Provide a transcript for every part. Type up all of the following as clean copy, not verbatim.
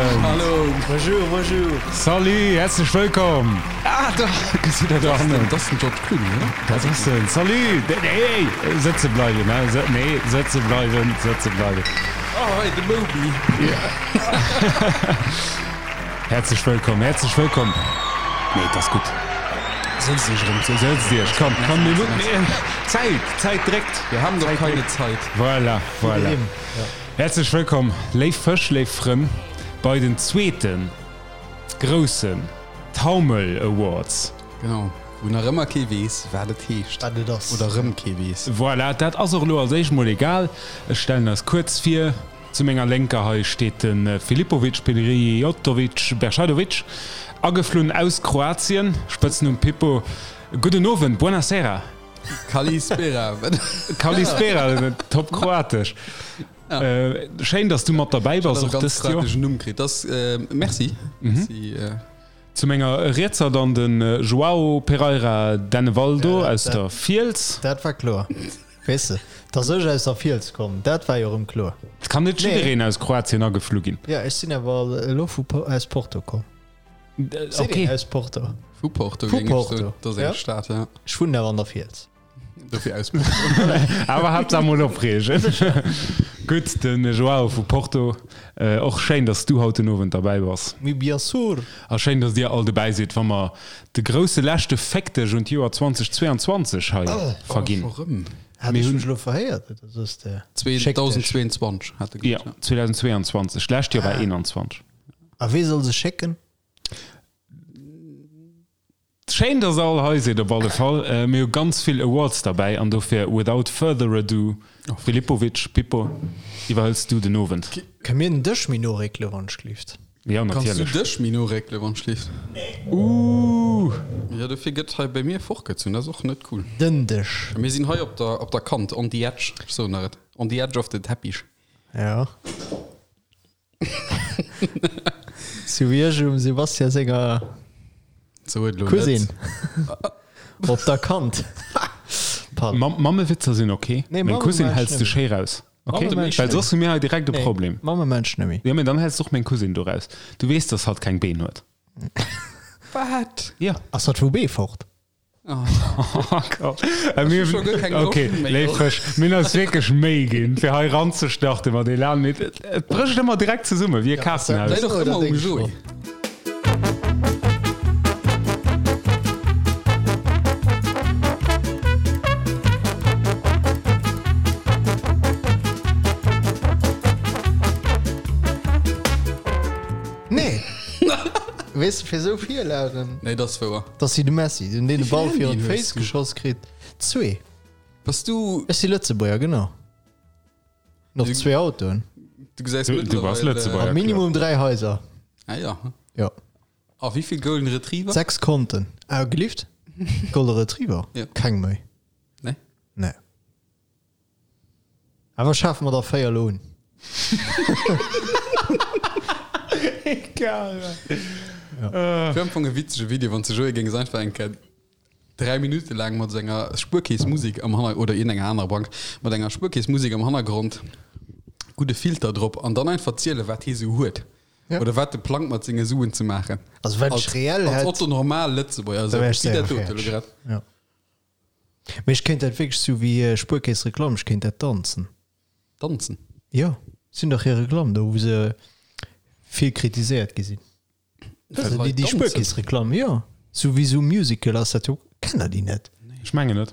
Owend. Hallo. Bonjour, bonjour. Salut, häerzlech wëllkomm. Ah, da gesitt der do hannen. Dat ass den George Clooney, oder? Dat ass en. Salut. Hey, sëtze bleiwen, hè. Nee, sëtze bleiwen, sëtze bleiwen. Oh, hei, de Moby. Häerzlech wëllkomm, häerzlech wëllkomm. Nee, et ass gutt. Sëtzt iech erëm. Sëtzt iech, komm, komm, mir mussen, Zäit, d'Zäit dréckt. Wir haben doch keine Zeit. Voilà, voilà. Häerzlech wëllkomm, léif Fësch, léif Frënn, bei den zweete groussen Taumel Awards. Genau, wou nach ëmmer kee weess, wat et heescht. Wat et ass. Oder erëm kee weess. Voilà, dat ass och elo als éischt mol egal. Ech stellen eis kuerz vir. Zu menger Lénker hei steet de Filipovic Pirijotovic Beršadovic, ageflunn aus Kroatien, Spëtznumm Pippo. Gudden Owend, buonasera. Kalispera. Kalispera, top kroatesch. Schéin, dass du mat derbäi bass och dëst Joer. Numm kritt. Das, merci. Merci. Zu menger Rietser dann de Joao Pereira Dennevaldo aus der Fiels. Dat war kloer. Weess de, dass ech aus der Fiels kommen, dat war jo erëm kloer. Et kann net jiddereen aus Kroatien ageflu ginn. Jo, ech sinn awer elo vu aus Porto komm. Seet een aus Porto? Vu Porto, Vu géing ech soen. Porto, Dat ass eng Stad, ja. Ech wunnen awer an der Fiels. Dofir aus Porto. Awer Haaptsaach mol opreegen. Gutt, de Joao vu Porto. Och schéin, dass du haut den Owend derbäi bass. Mais bien sûr! A schéin, dass dir all dobäi sidd, wa mer de grousse leschte Féckdeg un d'Joer 2022 hei verginn. Oh, scho rëm. Hat ech mech elo verhéiert, oder soss de Schéckdeg? 2022 hat e gesot, ja. 2022. D'lescht Joer war 21. A wee soll se schécken? Schéin dass der all hei sidd op alle Fall. Mir hu ganz vill Awards derbäi an dofir without further ado, Filipovic, Pippo, iwwerhëls du den Owend? Kënne mir den Dësch méi no réckele wann ech glift? Jo, Kanns du natierlech. dech méi no réckele wann ech glift? Ooh! Jo, dofir gëtt hei bei mir fortgezunn, dat ass och net cool. Den Dësch. Mir sinn hei op der op der Kant, on the edge, ech soen der et, on the edge of the Teppich. Jo. Sou wéi ech um Sebastian senger Cousine op der Kant. Mammewitzer sinn ok, meng Cousine häls de schéi raus, ok? Well soss hu mir hei direkt e Problem. Mammemensch net méi. Jo, mee dann häls de och meng Cousine do raus. Du weess, dass hatt keng Been huet. Wat? Jo. Ass hatt vu Beefort? Ok, léif Fësch, mir hunn eis wierklech Méi ginn, fir hei eranzestarten mat Elan, mee et brécht ëmmer direkt zesumme wéi e Kaartenhaus. Läit och ëmmer um Joé. Nee! Weess de, fir esou Virlagen. Nee, dat ass wouer. Dass si de Messi, den deen de Ball virun d'Féiss du? geschoss kritt. Zwee. Bass du. Ech si Lëtzebuerger, genau. Noch zwee Autoen. Du gesäis Du, du bass Lëtzebuerger. A minimum 3 Haiser. Ah ja. Jo. A wéi vill Golden Retriever? 6 Konten. Ah, gelift? Golden Retriever? Ja. Keng méi. Nee? Nee. Awer schafe mer der 4 elo un. Egal. Wier am Fong e witzege Video, wann s de Joé géings einfach eng Kéier 3 Minutte laang mat senger Spuerkeess-Musek am Hanner-, oder iergendenger anerer Bank, mat enger Spuerkeess-Musek am Hannergrond, gudde Filter drop an dann einfach zielen, wat hie sou huet. Ja. Oder wat e plangt mat senge Suen ze maachen. Also wat ech reell Als hätt, Otto Normal Lëtzebuerger, da esou wär ech wéi séier dat dote elo fäerdeg. grad. Ja. Mee ech kéint dat wierklech sou wéi Spuerkeess-Reklamm, ech kéint dat danzen. Danzen? Jo, si hunn dach hir Reklamm do, wou se vill kritiséiert gi sinn. Well Déi, déi Spuerkeess-Reklamm, jo. Sou wéi sou Musical ass dat jo. Kennt der déi net? Ech mengen net.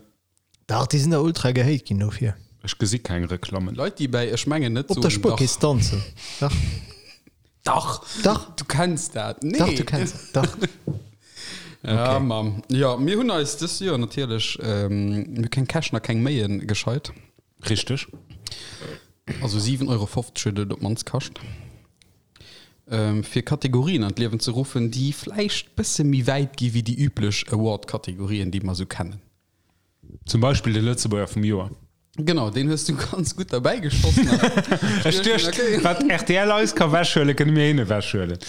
Dach, déi sinn da ultra gehate ginn dofir. Ech gesi keng Reklammen. Leit, déi bäi Ech mengen net Op der soen, dach. Spuerkeess danzen. Dach. Dach! Dach! Du kenns dat. Nee! Dach, du kenns dat. Dach. Ja, okay. Mamm. Ja, mir hunn eis dëst Joer natierlech ähm, mir hu keng Käschen a keng Méien gescheit. Richteg. Also 7,50 Euro huet et op d'mannst kascht. Ähm, fir Kategorien an d'Liewen ze ruffen, déi vläicht bësse méi wäit gi wéi déi üblech Award-Kategorien, déi mer sou kennen. Zum Beispill de Lëtzebuerger vum Joer. Genau, deen hues du ganz gutt derbäi geschoss. Ech duecht, wat rtl eis ka wechhuelen, kënne mir hinne wechhuelen.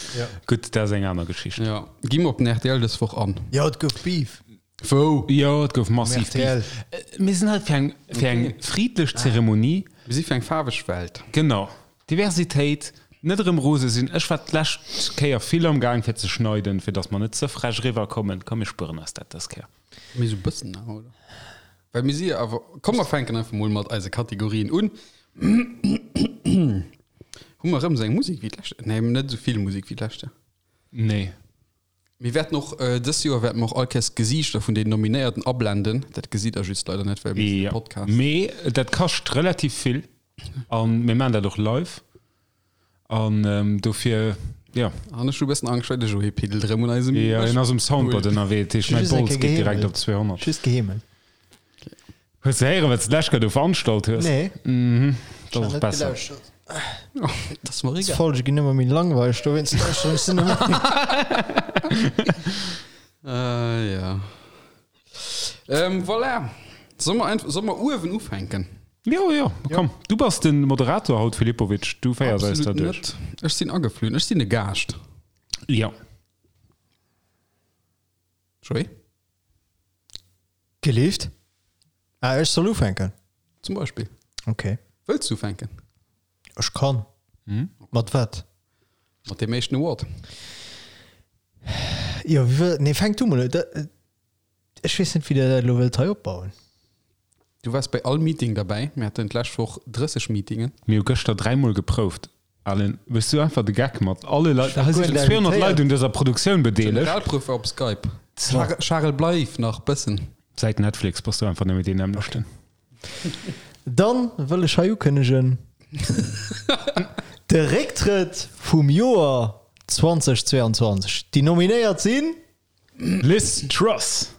Gutt, dat ass eng aner Geschicht. Jo, gi mer op den rtl dës Woch an. Jo, et gouf Beef. Wou? Jo, et gouf massiv RTL. Beef. Mir sinn hei fir eng, fir eng friddlech Zeremonie. Mir si fir eng faarweg Welt. Genau. Diversitéit. Net erëm rose sinn. Ech war d'lescht Kéier vill am Gaang fir ze schneiden, fir dass mer net ze frech eriwwer kommen. Komm mir spueren eis dat dës Kéier. Mee sou bëssen awer, oder? Well mir si jo awer, komm mer fänken einfach mol mat eise Kategorien un. Hu mer erëm sou eng Musek wéi d'lescht? Nee, net esou vill Musek wéi d'lescht Joer. Nee. Mir wäerten och, dës Joer wäerte mer och all Kéiers d'Gesiichter vun den Nominéierten ablenden. Dat gesitt der just leider net, well mir sinn e Podcast. Mee dat kascht relativ vill a mir maachen dat och live an dofir, jo. An ech hu e bëssen Angscht, well de Joé piddelt erëm un eisem. Jo, hien ass um Soundboard ënnerwee, dat heescht mäi Bols geet direkt op 200. Just geheemelt. Hues de héieren, wat s de d'lescht Kéier do veranstalt hues? Nee. Mhm, dat ass och besser. Dat ass mer egal. D'Folge ginn ëmmer méi langweileg, dowéinst lauschteren ech se net méi. Äh, ja. Ähm, voilà. Solle mer einfach, solle mer uewen ufänken? Jo, jo, komm. Du bass de Moderator haut, Filipovic. Du féiers eis da Absolut duerch. net. Ech sinn ageflunn. Ech sinn e Gaascht. Jo. Joé? Gelift? Ah, ech soll ufänken? Zum Beispill. Okay. Wëlls du ufänken? Ech kann. Mat wat? Mat deem éischten Award. Jo, wéi wëll, nee, fänk du mol un. Da, ech weess net, wéi der dat elo wëllt hei opbauen. Du waars bei all Meeting derbäi. Mir haten d'lescht Woch 30 Meetingen. Mir hu gëschter dräimol geprouft. Alain, méchs du einfach de Geck mat alle Leit? Ech Hei war sinn guer 200 Leit invitéiert. un dëser Produktioun bedeelegt. Generalprouf war op Skype. Charel, bleif nach bëssen. Säit Netflix bass du einfach nëmme deen nämmlechten. Dann wëll ech hei ukënnegen, de Récktrëtt vum Joer 2022. Déi Nominéiert sinn. Liz Truss.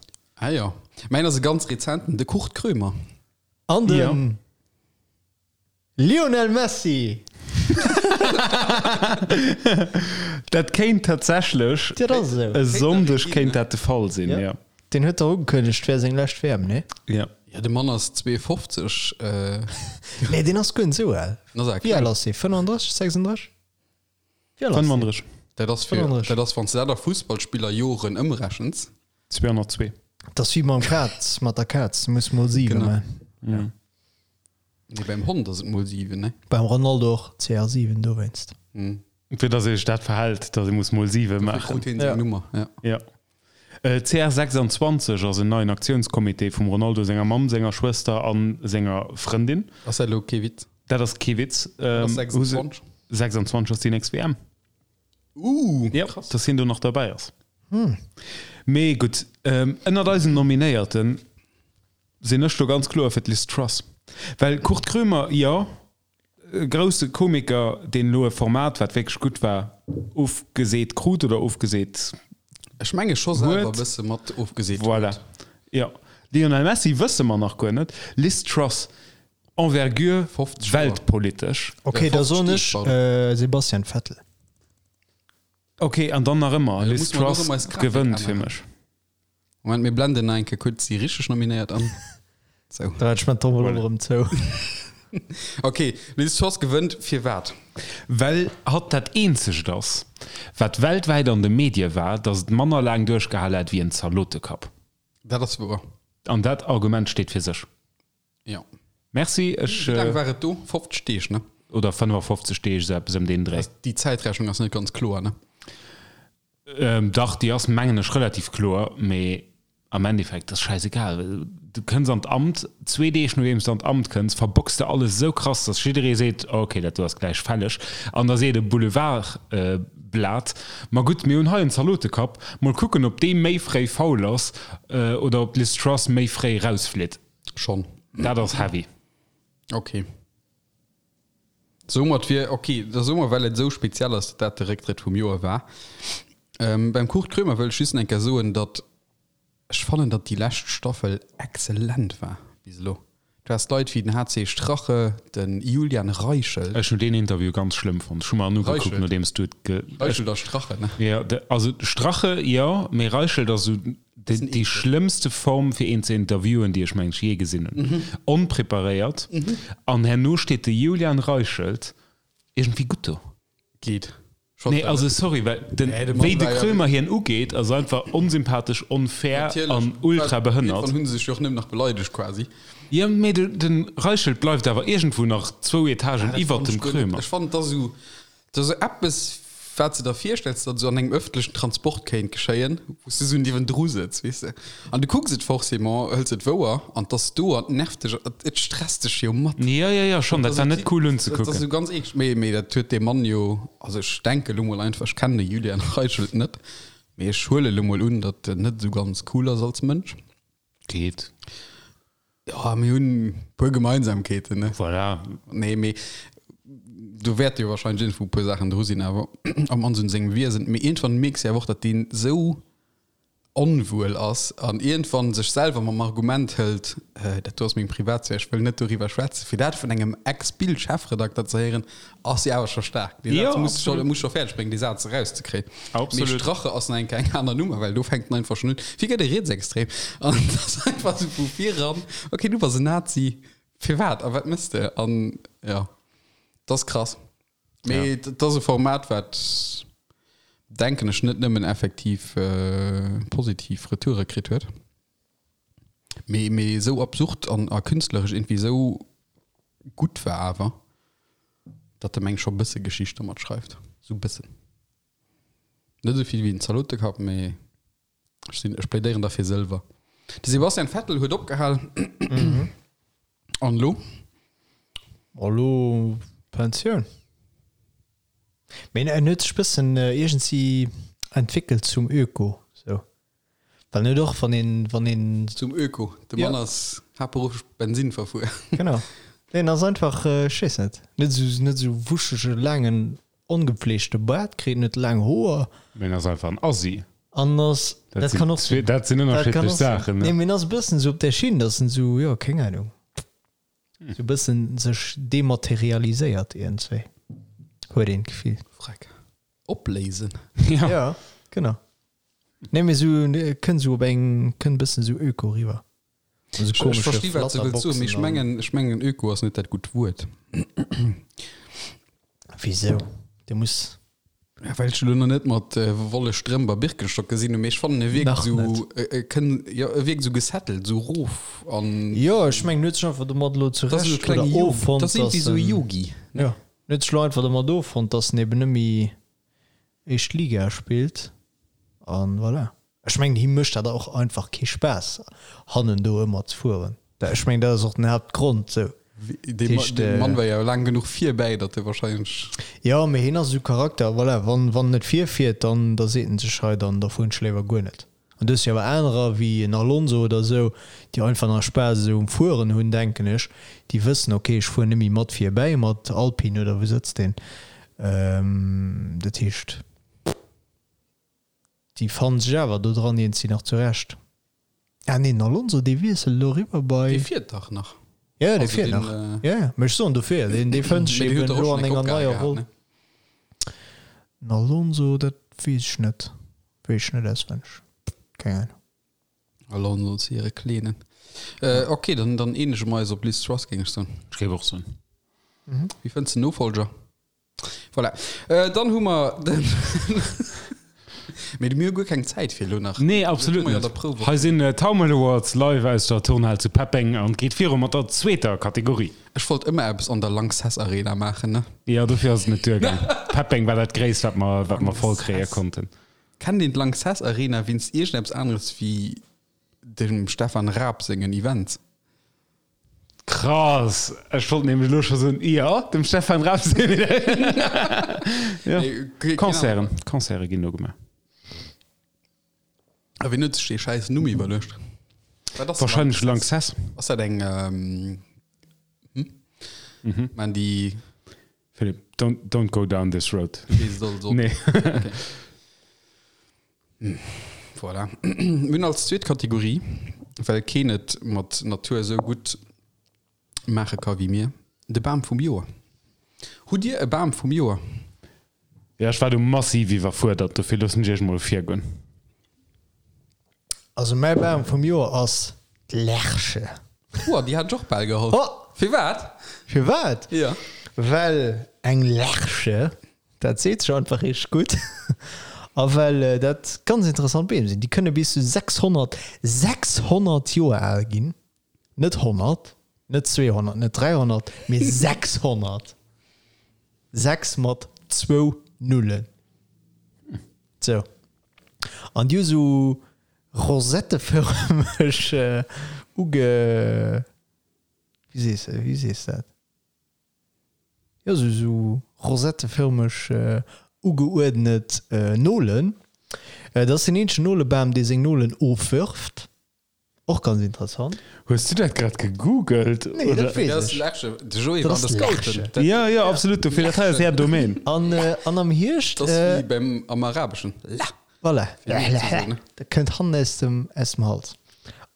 Ah jo, mäin ass e ganz rezenten, de Kurt Krömer. An de Jo. Lionel Messi! Dat kéint tatsächlech Dat ass esou. e Sonndeg kéint dat de Fall sinn, jo. Deen huet dach ugekënnegt, et wär seng lescht WM, nee? Jo. Ja, de Mann ass 52. Nee, deen ass guer net esou al. Den ass awer Wéi al kleng. ass dee? 35, 36? Wéi al ass deen? 35. Dat ass fir, 35. dat ass, wann s de dat a Fussballspillerjoren ëmrechens. 202. Dat ass wéi mam Kaz, mat der Kaz, du muss mol 7 Genau. maachen. Nee, beim Hond ass et mol 7, ne? Beim Ronaldo och CR7 dowéinst. Fir dass ee sech dat verhält, dass ee muss mol 7 maachen. Krut hien seng Nummer, ja. Ja. CR26 ass en neien Aktiounscomité vum Ronaldo senger Mamm, senger Schwëster a senger Frëndin. Ass dat elo kee Witz? Dat ass kee Witz. Ass 26? 26 ass déi nächst WM. Uh, Ja, krass. dass hien do nach derbäi ass. Mee gutt, ënnert eisen Nominéierten sinn ech do ganz kloer fir d'Liz Truss. Well Kurt Krömer, jo, e grousse Komiker, deen elo e Format, wat wierklech gutt war, ofgeseet krut oder ofgeseet Ech menge scho selwer e huet. bësse mat ofgeseet Voilà. huet. Jo. Lionel Messi wësse mer nach guer net. Liz Truss, Envergure 50 Joer. weltpolitesch. Okay, da 50 soen Deeg, ech pardon. Sebastian Vettel. Ok, an dann nach ëmmer, Da Liz muss mer Truss och ëmmer eis Grafik gewënnt fir änneren. mech. Moment, mir blenden nach eng Kéier kuerz déi richteg Nominéiert an. Sou. Da hat ech mein Trommel och erëm zou. Ok, Liz Truss gewënnt firwat? Well hatt dat eenzegt ass, wat weltwäit an de Medie war, datt et manner laang duerchgehal hat wéi en Zalotekapp. Dat ass wouer. An dat Argument steet fir sech. Jo. Merci, ech. Wéi laang war et do? 50 Deeg, ne? Oder 55 Deeg, esou eppes ëm deen Dréi. Déi Zäitrechnung ass net ganz kloer, ne? Dach, déi ass, mengen ech, relativ kloer, mee am Endeffekt ass schäisegal. Du kënns an d'Amt, zwee Deeg nodeems du an d'Amt kënns, verbocks de alles esou krass, dass jidderee seet, ok, dat do ass gläich fälleg. An da seet e Boulevardblat, ma gutt, mir hunn hei en Zalotekapp, mol kucken, ob dee méi fréi faul ass oder ob d'Liz Truss méi fréi rausflitt. Schonn. Dat ass heavy. Ok. Soumat wier, ok, da soe mer, well et esou speziell ass, datt dat de Récktrëtt vum Joer war. Beim Kurt Krömer wëll ech just eng Kéier soen, datt ech fannen, datt déi lescht Staffel exzellent war bis elo. Du has Leit wéi den HC Strache, de Julian Reichelt. Ech hunn deen Interview ganz schlëmm fonnt. Ech hu mer en ugekuckt, Reichelt? nodeems du et ge. Reichelt a Strache, ne? Jo, de, also Strache, jo, mee Reichelt ass esou déi schlëmmste Form fir een ze interviewen, déi ech mengen ech jee gesinn hunn. Onpreparéiert. An herno steet de Julian Reichelt iergendwéi gutt do. Geet. Nee, also sorry, well den, Nee, de Mann wéi de war ja Krömer hien ugeet, ass einfach onsympathesch, onfair Natierlech. an ultra behënnert. Irgendwann hunn se sech jo och nëmmen nach beleidegt quasi. Jo, mee de, de Reichelt bleift awer iergendwou nach zwou Etagen iwwert dem Krömer. Ech fannen, et ass esou. Dat ass esou eppes, wat s de der virstells, datt esou an engem ëffentlechen Transport kéint geschéien, wou s de esou niewendru sëtz, weess de. An du kucks et forcément, hëls et wouer an 't ass do an 't nervt dech, et stresst dech jo mat. Jo, jo, jo, schonn, dat war net cool unzekucken. Dat ass esou ganz eeklech. Mee, mee dat huet dee Mann jo, also ech denke lo mol einfach, ech kennen de Julian Reichelt net, mee ech huele lo mol un, datt en net esou ganz cool ass als Mënsch. Geet. Ja, mir hunn e puer Gemeinsamkeeten, ne? Voilà. Nee, mee do wäerte jo wahrscheinlech iergendwou e puer Saachen dru sinn, awer am Anse un sengem Wiesen. Mee iergendwann mierks de awer och, datt deen esou onwuel ass an iergendwann sech selwer mam Argument hëlt, dat do ass meng Privatsphär, ech wëll net doriwwer schwätzen. Fir dat vun engem Ex-Bild-Chefredakter ze héieren, ass jo awer scho staark. Dee Saz Jo, muss scho, absolut. muss scho fäerdeg bréngen, dee Saz erauszekréien. Mee Absolut. Strache ass nach eng Kéier eng aner Nummer, well do fänkt en einfach schonn un, wéi gëtt e Rietsextrem? An et ass einfach esou vu viran, okay, du bass en Nazi, firwat a wat mëss de? An jo, dat ass krass. Mee et ass e Format, wat, denken ech, net nëmmen effektiv positiv Retoure kritt huet, mee mee esou absurd an a künstleresch iergendwéi esou gutt war awer. Datt de meng scho bësse Geschicht domat schreift. Sou bëssen. Net esou vill wéi en Zalotekapp, mee ech sinn, ech plädéieren da fir Sëlwer. De Sebastian Vettel huet opgehal. An elo? A lo Pensioun. Mee en huet sech bëssen iergendwéi entwéckelt zum Öko, sou. Well net och wann een, wann een. Zum Öko, de Mann ass haaptberufflech Bensin verfuer. Genau. Deen ass einfach, ech weess net, net esou, net esou wuschege laangen ongepflegte Baart kritt, net laang Hoer. Mee en ass einfach en Assi. An ass, dat kann och sinn. Dat sinn ënnerschiddlech Saachen, ne? Nee, mee en ass e bëssen esou op där Schinn, dass en esou, jo, keng Ahnung, esou e bëssen sech dematerialiséiert iergendswéi, huet een d'Gefill. Freck. Opléisen. Ja. Ja, genau. Nee, mee sou kënnt sou op eng, kënnt bëssen sou öko riwwer. Also Ech komesche versti wat se wëllt soen, mee ech Flatterboxen an. mengen, ech mengen öko ass net dat gutt Wuert. Wisou? De muss. Ja, well ech elo nach net mat Wolle Strëmp a Birkenstock gesinn hunn, mee ech fannen e wierkt Nach sou, net. e e kënn, jo e wierkt sou gesettelt, sou rof an. Jo, ech mengen, huet sech einfach domat elo Dat ass esou zurecht oder klenge Yogi, offonnt, dat ass dass iergendwéi sou e en. Yogi, ne? Jo, huet sech elo einfach domat offonnt, dass en eben net méi éischt Liga spillt an voilà. Ech mengen him mécht dat och einfach kee Spaass hannen do ëmmer ze fueren. Ech mengen dat ass och den Haaptgrond sou. Dee Mann war jo laang genuch virbäi, datt e wahrscheinlech. Jo, mee hien ass esou Charakter, voilà, wann wann en net virfiert, dann da seet en sech hei, dann da fueren ech léiwer guer net. An du hues jo awer anerer wéi en Alonso oder esou, déi einfach nach Spaass esou um Fueren hunn, denken ech, déi wëssen, ok, ech fueren net méi mat virbäi mat Alpine oder wou sëtzt deen, dat heescht, déi fannen sech awer do dran iergendwéi nach zurecht. Ah nee, den Alonso, dee wiesselt elo eriwwer bei. Dee fiert dach nach. Jo, dee fiert nach, jo, jo, mee ech soen dofir, deen, dee fënnt sech eben elo an enger neier Roll. Den Alonso, dat weess ech net. Weess ech net auswenneg. Keng Ahnung. Alonso zu hire Kleenen. Äh, okay, dann, dann eenege mer eis op Liz Truss, géing ech soen. Ech géif och soen. Wie fënns den Nofolger? Voilà. Äh, dann hu mer den. Mee mir hu guer keng Zäit fir elo nach. Nee, absolut Mir net. der Prouf. Hei sinn d'Taumel Awards live aus der Turnhal zu Peppeng an et geet viru mat der zweeter Kategorie. Ech wollt ëmmer eppes an der Lanxess Arena maachen, ne? Jo, dofir ass et net duergaang. Peppeng war dat Gréisst, wat mer, wat mer voll kréie konnten. Kennt een d'Lanxess Arena wéinst iergendeppes aneres wéi dem Stefan Raab sengen Events? Krass! Ech wollt nämlech elo scho soen, jo, dem Stefan Raab seng Jo, Concerten, Concerte ginn do gemaach. A wien huet sech dee schäiss Numm iwwerluecht? Wat ass Wahrscheinlech Lanxess. Ass dat eng, hm? Maan déi. Philipp, don't, don't go down this road. Du weess et also. Nee. Okay. Voilà. Mir hunn als zweet Kategorie, well keen et mat Natur esou gutt maache ka wéi mir, de Bam vum Joer. Hutt Dir e Bam vum Joer? Ja, ech war do massiv iwwerfuerdert, dofir loossen ech iech mol virgoen. Also mäi Bam vum Joer ass d'Lerche. Oua, déi hat ech och bal geholl. Oh! Firwat? Firwat? Ja. Well eng Lerche, dat seet sech einfach richteg gutt. A well dat ganz interessant Beem sinn. Déi kënne bis zu 600, 600 Joer al ginn. Net 100, net 200, net 300, mee 600. 6 mat. Zwou Nullen. Sou. An déi hu sou rosettefërmeg uge, wéi sees de, wéi sees dat? Jo, sou, sou rosettefërmeg ugeuerdnet Nolen. Dat ass deen eenzegen Nolebam, dee seng Nolen ofwërft. Och ganz interessant. Hues du dat grad gegoogelt? Nee, dat weess ech. De Joé war an der Scouten. Jo, jo, absolut. Dofir, dat hei ass är Domaine. An, an am Hierscht. Dat ass wéi beim, am Arabeschen. La. Voilà. Dat kënnt hannen aus dem, aus dem Hals.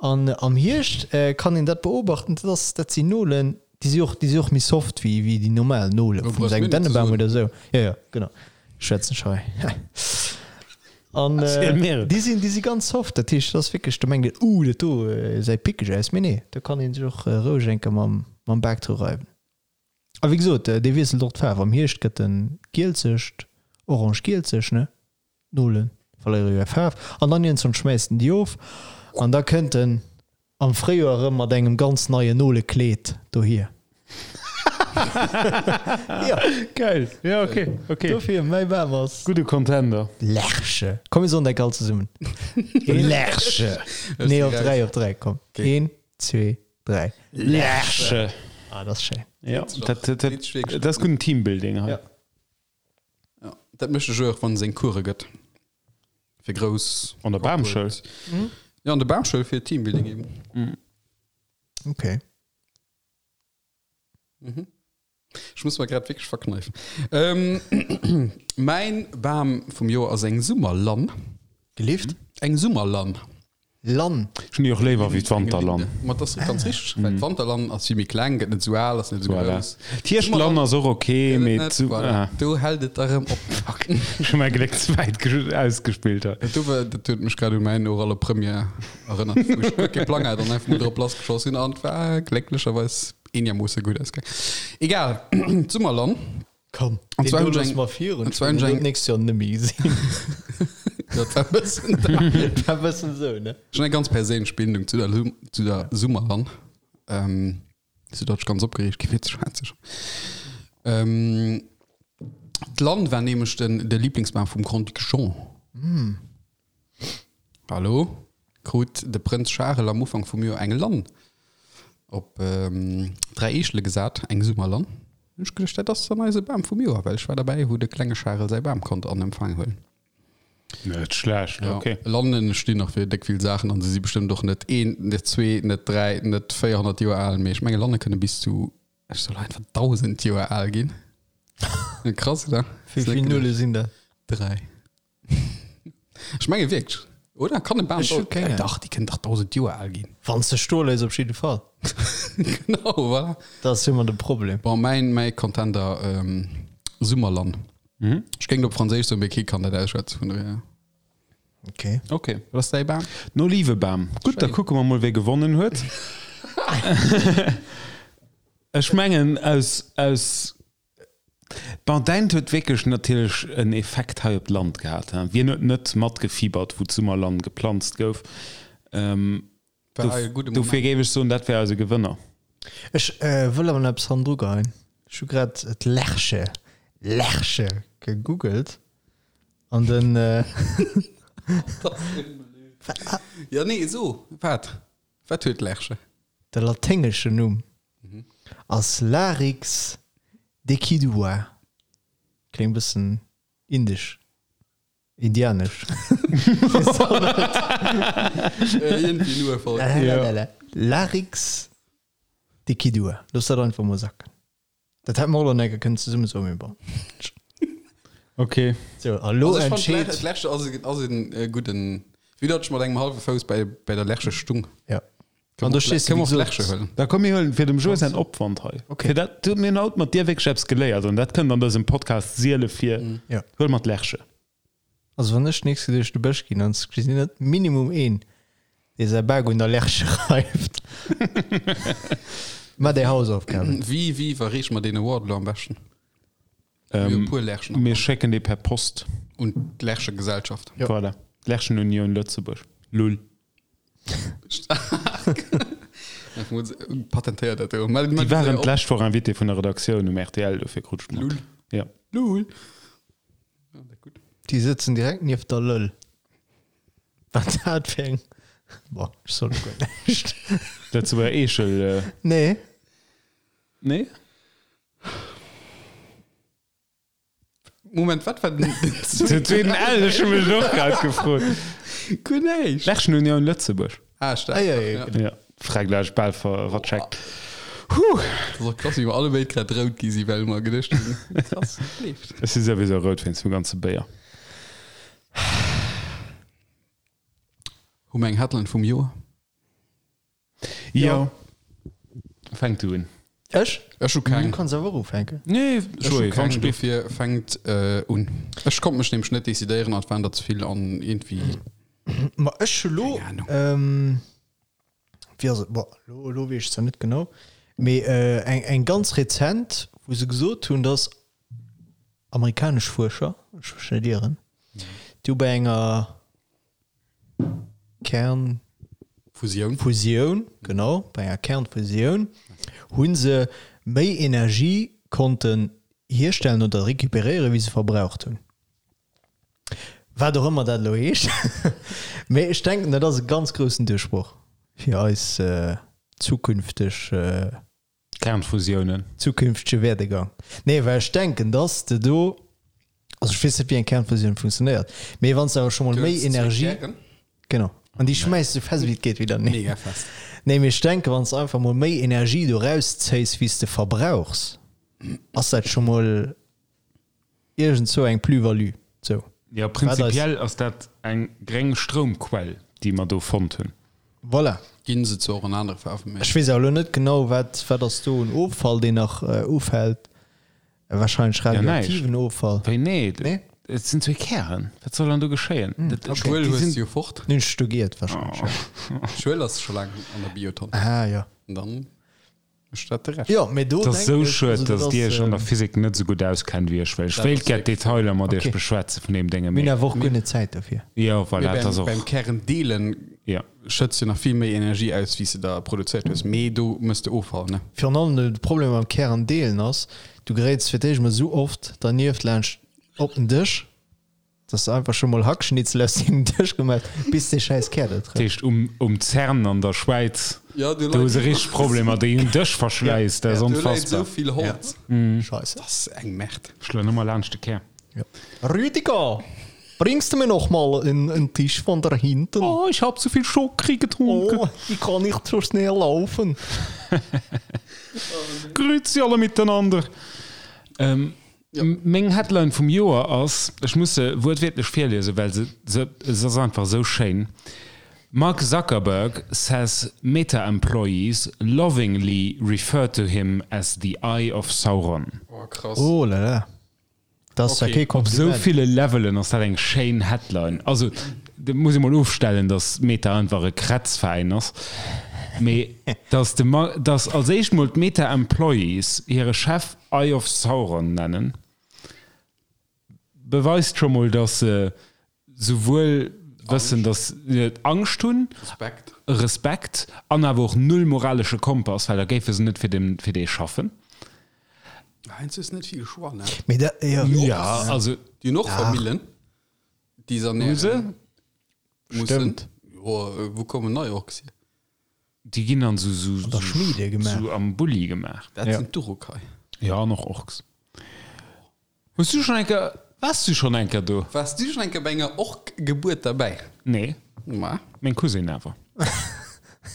An am Hierscht kann een dat beobachten, dat ass, dat sinn Nolen, déi si och, déi si och méi soft wéi, wéi déi normal Nole vun engem Dännebam oder esou. Jo, jo, genau. Schwätzen ech hei. An déi sinn, déi si ganz soft, dat heescht, dat ass wierklech, do mengt een, uh, dat do gesäit pickeg aus, mee nee, do kann ee sech och roueg eng Kéier mam, mam Bak dru reiwen. A wéi gesot, dee wiesselt och d'Faarf, am Hierscht gëtt en gielzegt, orange-gielzeg, ne, d'Nole verléiere jo hir Faarf, an dann iergendwann schmäisst en déi of an da kënnt en Am Fréijoer erëm mat engem ganz neien Nolekleed dohier. Jo. Geil. Jo, ok, ok. Dofir, mäi Bam ass. Gudde Contender. Lerche. Komm, mir soen dat all zesummen. Lerche. Nee, op 3, op 3, komm. Een, zwee, 3. Lerche. Ah, dat ass schéin. Jo, dat, dat, dat ass gudden Teambuilding hei. Ja. Ja, dat mécht de Joé och, wann e seng Course gëtt. Fir grouss. An der Bamschoul? Ja, an der Bamschoul fir Teambuilding eben. Mhm. Okay. Mhm. Ech muss mer grad wierklech verkneifen. Ähm, mäin Bam vum Joer ass eng Summerlann. Gelift? Eng Summerlann. Lann. Ech hunn déi och léiwer wéi d'Wanterlann. Ma dat ass ganz richteg, well d'Wanterlann ass vill méi kleng, gëtt net esou al, ass net esou Voilà. grouss. D'Hierschtlann ass och ok, Gëtt et mee net, d'Su voilà. ah. Do hält et da rëm op. Fuck, ech hu mäi Gléck ze wäit ausgespillt hei. Dat do war, dat huet mech grad u mäin orale Première erënnert, wou ech guer kee Plang hat an einfach mol drop lassgeschoss sinn an et war glécklecherweis eenermoosse gutt ausgaang. Egal, d'Summerlann. Komm, An deen zwar do hunn ech loosse eng- mer virun. an zwar hunn ech eng- D'nächst Joer net méi gesinn. Dat war e bëssen Dat war e bëssen esou, ne? Ech hunn eng ganz perséinlech Bindung zu der, zu der Summerlann. Ähm, sou datt ech ganz opgereegt gi fir ze schwätzen. Ähm, d'Lann war nämlech den, de Lieblingsbam vum Grand-Duc Jean. Hallo? Krut de Prënz Charel am Ufank vum Joer eng Lann op 3 Eechele gesat, eng Summerlann. Hunn ech geduecht, dat ass dann eise Bam vum Joer, well ech war derbäi, wou de klenge Charel säi Bam konnt an Empfang huelen. Net schlecht, Ja, ok. Lannen stinn nach fir déck vill Saachen an se si bestëmmt och net een, net zwee, net dräi, net 400 Joer al, mee ech menge Lanne kënne bis zu, ech soll einfach 1.000 Joer al ginn. Krass, oder? Wéi vill Nulle sinn dat? Dräi. Ech menge wierklech, oder? Kann e Bam Ech hu keng Ahnung. Dach, déi kënnen dach 1.000 Joer al ginn. Wann s de stoe léiss, op jidde Fall. Genau, voilà. Dat ass ëmmer de Problem. Bon, mäin, mäi Contender, ähm, Summerlann. Mhm. Ech géing et op Franséisch soen, mee kee kann dat ausschwätzen, vun dohier. Okay. Okay. Wat ass däi Bam? Den Olivebam. Gutt, da Schéin. kucke mer mol, wie gewonnen huet. Ech mengen, aus, aus Bon, däint huet wierklech natierlech en Effekt hei op d'Land gehat. Wien huet net matgefiebert, wou d'Summerlann geplanzt gouf? Dofir géif ech soen, dat wär eise Gewënner. Ech wëll awer nach eppes hannendru geheien. Ech hu grad d'Lerche, Lerche, gegoogelt an den. Jo, nee, so, wat? Wat huet d'Lerche? De laténgeschen Numm ass Larix decidua. Kléngt bëssen indesch, indianesch. Larix decidua. Looss dat einfach mol sacken. Dat hätte mer och nach enke kënnen zesumme soen, mee bon. Ok. Sou, a lo Also ech fand entscheet. d'Lerche ass e, ass en äh, gudden, wéi datt ech mat engem hallwe Fouss bei, bei der Lerche stung. Ja. Kënne An do mer och stees du, kënne wéi mer och gesot. Lerche huelen. Da komm mir huelen fir dem Joe säin Opwand hei. Ok. Fir dat, du, mir hunn haut mat dir wierklech eppes geléiert an dat kënnt an dësem Podcast siele vir. Ja. Huele mer d'Lerche. Also wann ech d'nächst Kéier duerch de Bësch ginn, dann gesinn net minimum een, dee säi Bak un der Lerche reift. Maach déi Hausaufgaben. Wéi, wéi iwwerreeche mer deen Award elo am beschten? Mir hu e puer Lerchen am Mir Land. schécken dee per Post. Un d'Lerchegesellschaft. Jo. Voilà. D'Lerchenunioun Lëtzebuerg. Lull. Patentéiert dat do. Déi Déi waren d'lescht Woch Invité vun der Redaktioun um rtl, dofir krut ech mat. Lull. Ja. Lull. Déi sëtzen direkt nieft der Lëll. Wat dat fir eng. Bon, ech soll guer näischt. Lëtzebuerger Eechel. Nee. Nee? Moment, wat war den Den zweeten L, ech hu mech och grad gefrot. Guer näischt. Lerchenunion Lëtzebuerg. Ah, stark. Ah, ja, ja, Ja, Frägleich bal ver vercheckt. Huh. Dat ass och krass, wéi mer alle béid grad rout gi si, well mer geduecht hunn, krass, leeft. Ech si souwisou rout wéinst dem ganze Béier. Hu mer eng Headline vum Joer? Jo. Fänk du un. Ech? Ech hu keng. Du kanns awer och ufänken. Nee, Ech hu Joé, keng, wann dofir fänkt un. Ech konnt mech nämlech net decidéieren an et waren der ze vill an iergendwéi. Ma ech hu lo, Keng Ahnung. wéi ass et, bon, lo, lo weess ech zwar net genau, mee eng, eng ganz rezent, wou se gesot hunn, dass amerikanesch Fuerscher, ech mech net ieren, déi hu bei enger Kern. Fusioun. Fusioun, genau, bei enger Kernfusioun hu se méi Energie konnten hierstellen oder recuperéieren, wéi se verbraucht hunn. Wat och ëmmer dat elo heescht. Mee ech denken, dat ass e ganz groussen Duerchbroch fir eis zukünfteg. Kernfusiounen. Zukünftege Werdegang. Nee, well ech denken, dass de do, also ech weess net, wéi eng Kernfusioun funktionéiert, mee wann s de awer scho mol méi Energie. Genau. An déi schmäiss esou fest wéi et geet widder. Nee. Mega fest. Nee, mee ech denken, wann s de einfach mol méi Energie do rauszéis, wéi s de verbrauchs, ass dat scho mol. Iergendzou eng Plus-value. Sou. Jo, prinzipiell ass dat eng gréng Stroumquell, déi mer do fonnt hunn. Voilà. Ginn se zwar och an anere Faarwen, mee. Ech weess awer elo net genau, wat, wat ass do un Offall, deen nach ufält. Wahrscheinlech radioaktiven Offall. Wéi, nee? Nee? Et sinn zwee Kären. Wat soll dann do geschéien? Dat, okay. Schuel hues du jo fort. Hunn ech do giert, wahrscheinlech, jo. Schuel ass scho laang an der Biotonn. Ah, jo. An dann. Jo, mee do Et ass denken esou ech, schued, also dat dass Dir ass, Iech an der Physik net esou gutt auskennt wéi ech, well ech Dat wéilt ass gär wierklech d'Detailer mat Iech Okay. beschwätze vun deem Dénge, Mir hunn mee awer och guer net Zäit dofir. jo, voilà, Mee et ass beim, och, beim Kärendeelen jo. schëtts du nach vill méi Energie aus, wéi s de der produzéiert hues. Mee do mëss de Offall, ne? Virun allem de Problem mam Kärendeelen ass, du geréits fir d'éischt mol esou oft dernieft laanscht op den Dësch, Dass de einfach scho mol Hackschnitzel aus dengem Dësch gemaach hues, bis dee schäiss Kär do Dat trëfft. heescht, um, um CERN an der Schwäiz, Ja, do do hu leit se richteg Problemer, déi hunn Dëschverschläiss, dat ass Do läit esou onfassbar. vill Holz. Scheisse. Dat ass eng Merde. Schloen ëmmer laanscht de Kär. Ja. Rüdiger, bringst du mir noch mal en, en Tisch von da hinten? Oh, ich hab zu viel Schokri getrunken. Oh, ich kann nicht so schnell laufen. Grüezi alle miteinander. Ähm, Meng Headline vum Joer ass, ech muss se wuertwiertlech virliesen, well se se se ass einfach esou schéin, Mark Zuckerberg says Meta employees lovingly refer to him as the Eye of Sauron. Oh, krass. Oh là là, dat ass ja kee Op esou Kompliment. ville Levelen ass dat eng schéin Headline. Also, dat muss ee mol ofstellen, datt Meta einfach e Krätzveräin ass, mee datt de Mar datt als éischt mol d'Meta Employees hire Chef Eye of Sauron nennen, beweist scho mol, datt se souwuel wëssen, datt se Angscht hunn, Respekt. Respekt an awer och null moralesche Kompass, well da géife se net fir den, fir dee schaffen. Heiansdo hues net vill Choix, ne? Mee dat, jo. Ja, also. Déi hunn och Famillen, déi se Hu se? ernähren mussen. Stëmmt. Jo, wou kommen nei Orks hier? Déi ginn an sou, sou, An der Schmiede gemaach. sou am Bulli gemaach. Dat Ja. sinn d'Urukai. Ja, an och Orks. Hues du schonn eng Kéier, waars du schonn eng Kéier do? Waars du schonn eng Kéier bei enger Ork-Gebuert derbäi? Nee, Ma, meng Cousine awer.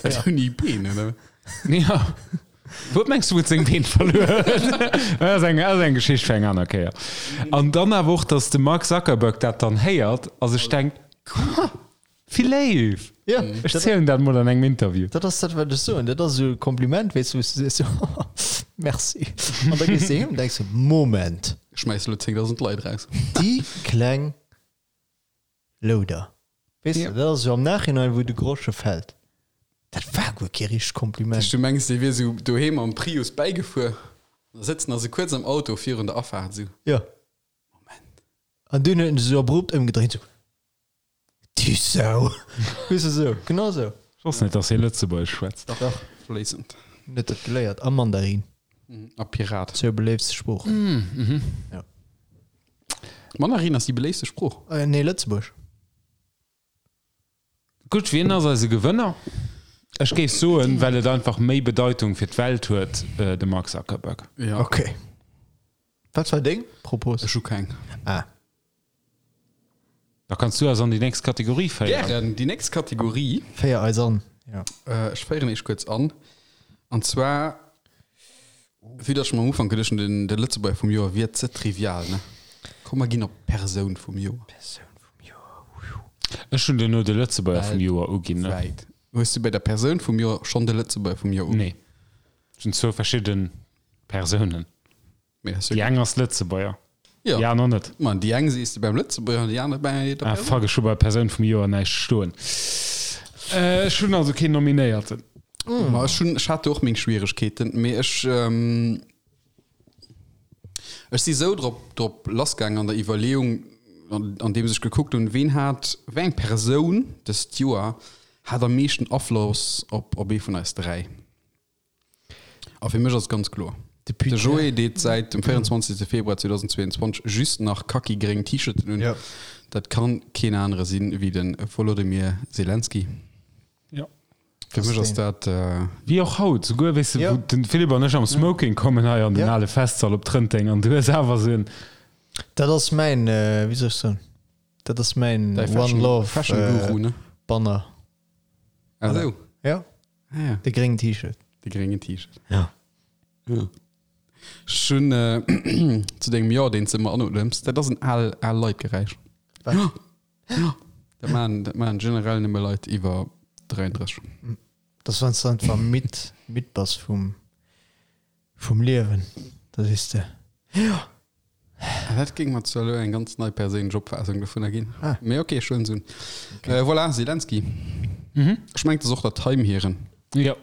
dat hunn déi Been, oder? Ja. Wou mengs du, wou et seng Been verluer huet? Dat ass eng, ass eng Geschicht fir eng aner Kéier. An dann awer och, dass de Mark Zuckerberg dat dann héiert a sech denkt, Ha, Wéi léif! Ja, Ech zielen dat mol an engem Interview. Dat ass dat, wat ech soen. Dat ass esou e Kompliment, weess du, wou s du sees, jo, merci. An da gees de heem an denks de, Moment. Ech schmäiss elo 10.000 Leit raus. Déi kleng Louder. Weess de, dat ass esou am Nachhinein, wou de Grosche fält. Dat war guer kee richtegt Kompliment. Du mengs, dee wier esou doheem am Prius bäigefuer, da sëtzen der se kuerz am Auto virun der Afaart esou. Jo. Moment. An dunn huet en sech esou abrupt ëmgedréint, esou. Du Sau! Weess de sou, genau sou. Ech wosst net, dass hie Lëtzebuergesch schwätzt. Dach, fléissend. Huet dat geléiert a Mandarin. A Pirat. Zwou beléiftste Sproochen. Ja. Mandarin ass déi beléiftste Sprooch. Nee, Lëtzebuerg. Gutt, wien ass eise Gewënner? Ech géif soen, well et einfach méi Bedeitung fir d'Welt huet, de Mark Zuckerberg. Ja. Ok. Wat war deng Propos? Ech hu keng. Ah. Da kanns du eis an déi nächst Kategorie féieren. Gären. Déi nächst Kategorie. Féier eis an, jo. Ech féieren iech kuerz an. An zwar, vue dass ech mer am Ufank geduecht hunn, de Lëtzebuerger vum Joer wier ze trivial, ne? Komm mer ginn op d'Persoun vum Joer. Persoun vum Joer, wuiu. Ech hunn duerno de Lëtzebuerger vum Joer uginn, ne? Weltwäit. Hues du bei der Persoun vum Joer schonn de Lëtzebuerger vum Joer uginn? Nee. Et sinn zwou verschidde Persounen. Déi eng ass Lëtzebuerger, déi aner net. Ma déi eng sees de beim Lëtzebuerger an déi aner bei der Persoun. Ah fuck, ech hu bei Persoun vum Joer näischt stoen. Ech hunn also keen Nominéierten. Ma ech hunn, ech hat do och meng Schwieregkeeten, mee ech, ech si sou drop, drop lassgaangen an der Iwwerleeung, andeems ech gekuckt hunn, ween hat, wéi eng Persoun dëst Joer hat am meeschten Afloss op, op ee vun eis 3. A fir mech ass et ganz kloer. De Joé deet säit dem 24. Februar 2022 just nach kaki-gréng T-Shirten un. Dat kann keen anere sinn wéi de Volodymyr Zelensky. Jo. Fir mech ass dat. Wéi och haut, souguer, weess de, wou den Philippe an ech am Smoking kommen hei an den ale Festsall op Trënteng an du hues awer esou en. Dat ass mäin, wéi soll ech soen, dat ass mäin One Love Banner. Ah sou. Jo. Ah, ja. De gréngen T-Shirt. De gréngen T-Shirt. Ja. Ja. Ech hunn äh, zu dengem Jo, deen s de ëmmer anodems, dat ass en al, al Leit-Geräisch. Wat? Ja. Ja. Dat maachen, dat maachen generell nëmme Leit iwwer 33. Dat ass, wann s de einfach midd, midd bass vum, vum Liewen. Da sees de, Jo. Ah, dat géing mer zwar elo eng ganz nei perséinlech Opfaassung dovunner ginn. Ah. Mee ok, ech huelen se un. Okay. Voilà, Zelensky. Mhm. Ech mengen, et ass och der Time hiren. Jo.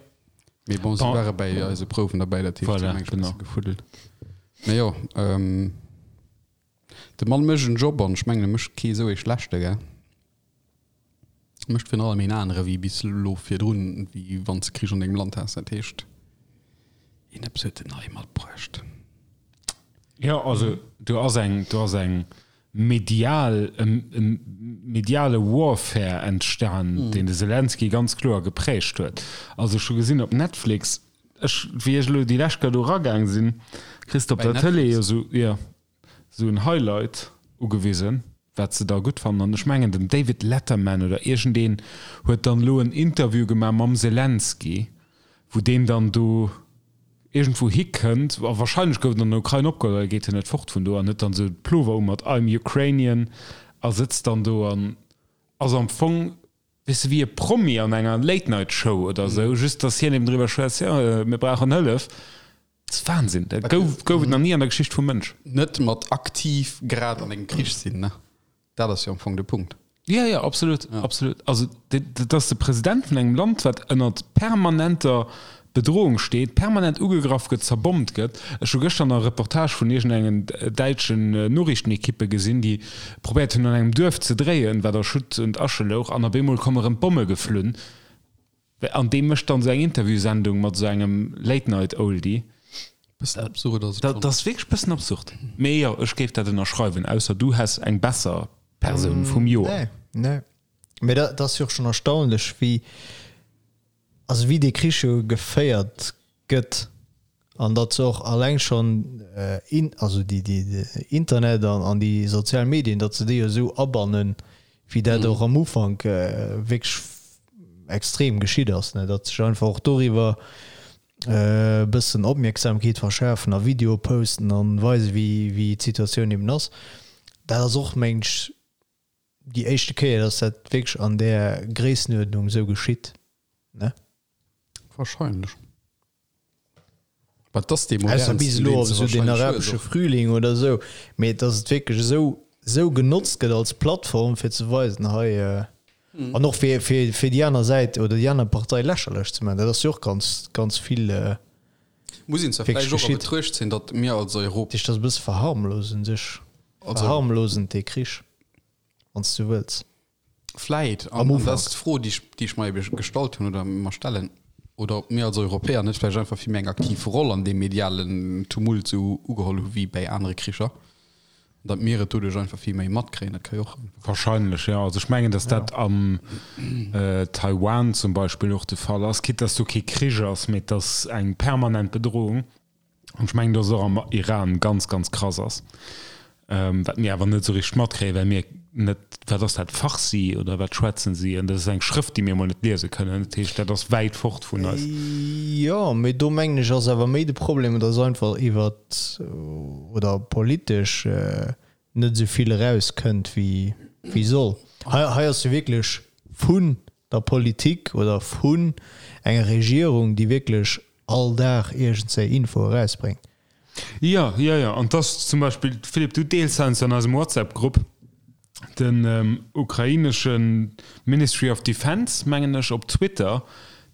Mee bon, se ware bäi eise Prouwen derbäi, dat heescht, Voilà, se hunn eng genau. bësse gefuddelt. Mee jo, ähm, de Mann mécht en Job an ech mengen, e mécht kee esou ee schlechte, gell? Mécht virun allem een anere wéi bis elo virdrun, wéi wann s de Krich an dengem Land has. Dat heescht, een eppes huet en nei matbruecht. Jo, also do ass eng, do ass eng medial, e mediale Warfare entstan, deen de Selenskyj ganz kloer geprägt huet. Also ech hu gesinn op Netflix, ech, wéi ech elo déi lescht Kéier do eragaang sinn, kriss de op Bei der Tëlee Netflix? jo esou, jo. sou en Highlight ugewisen, wat se da gutt fannen. An ech mengen den David Letterman oder iergendeen huet dann elo en Interview gemaach mam Zelensky, wou deen dann do iergendwou hikënnt, a wahrscheinlech gouf en an der Ukrain opgeholl, well e geet jo net fort vun do, an huet dann sou de Plover u mat I'm Ukrainian a sëtzt dann do an ass am Fong, weess de, wéi e Promi an enger Late Night Show oder sou, just dass hien eben driwwer schwätzt, jo, mir brauchen Hëllef. Dat ass Wahnsinn, dat gouf, gouf et nach ni an der Geschicht vum Mënsch. Net mat aktiv grad an engem Krich sinn, ne? Dat ass jo am Fong de Punkt. Ja, ja, absolut, absolut. Also dat ass de President vun engem Land, wat ënnert permanenter Bedrohung steet, permanent ugegraff gëtt, zerbommt gëtt. Ech hu gëschter nach e Reportage vun iergendengen däitschen Noriichtenekippe gesinn, déi probéiert hunn an engem Duerf ze dréien, wat a Schutt und Asche louch, an op eemol komme rëm d'Bomme geflunn. An dee mécht dann esou eng Interviewsendung mat esou engem Late-Night-Oldie. Bëssen absurd ass et schonn. Dat ass wierklech bëssen absurd. Mee jo, ech géif dat ënnerschreiwen, ausser du häss eng besser Persoun vum Joer. Nee, nee. Mee dat ass jo och schonn erstaunlech, wéi, also wéi dee Krich jo geféiert gëtt an datt se och alleng schonn in, also déi, déi, de Internet an, an déi sozial Medien, datt se déi jo esou abannen, wéi dat och am Ufank wierklech extrem geschitt ass, ne, datt sech einfach och doriwwer e bëssen Opmierksamkeet verschafen a Videoe posten an weisen, wéi, wéi d'Situatioun eben ass. Dat ass och, mengen ech, déi éischte Kéier, datt dat wierklech an där Gréissenuerdnung esou geschitt, ne? Wahrscheinlech. Wat ass dee Ausser bis modernsten, elo deen op se esou den wahrscheinlech hues arabesche och. Frühling oder esou, mee datt et wierklech esou esou genotzt gëtt als Plattform fir ze weisen, hei, an och fir fir fir déi aner Säit oder déi aner Partei lächerlech ze maachen, dat ass jo och ganz ganz vill Muss een zwar wierklech vläicht och a geschitt. Betruecht zéien, datt mir als Europ. Dat heescht, dat ass e bësse verharmlosend un sech, Also. verharmlosend dee Krich, wann s du wëlls. Vläit, Am an dat Ufank. ass d'Fro, déi ech, déi ech mer ebe gestallt hunn oder mer stellen, oder ob mir als Europäer net vläicht einfach vill méi eng aktiv Roll an deem medialen Tumult esou ugeholl hu wéi bäi anere Kricher. Datt mir et doduerch einfach vill méi matkréien, dat ka jo och. Wahrscheinlech, jo. Also ech mengen, datt dat am Taiwan zum Beispill och de Fall ass, quitte datt do kee Krich ass, mee et ass eng permanent Bedrohung. An ech mengen, datt et och am Iran ganz, ganz krass ass, wat mir awer net esou richteg matkréien, well mir net, wat ass dat, Farsi oder wat schwätzen si? An dat ass eng Schrëft, déi mir emol net liese kënnen. Dat heescht, dat ass wäit fort vun eis. Jo, mee do mengen ech ass awer méi de Problem, datt einfach iwwert oder politesch net esou vill erauskënnt wéi wéi soll. Hei hei ass jo wierklech vun der Politik oder vun enger Regierung, déi wierklech all Dag iergendzéi Info erausbréngt. Jo, jo, jo. An dass zum Beispill, Philippe, du deels heiansdo an eisem WhatsApp-Grupp den ukrainesche Ministry of Defense, mengen ech, op Twitter,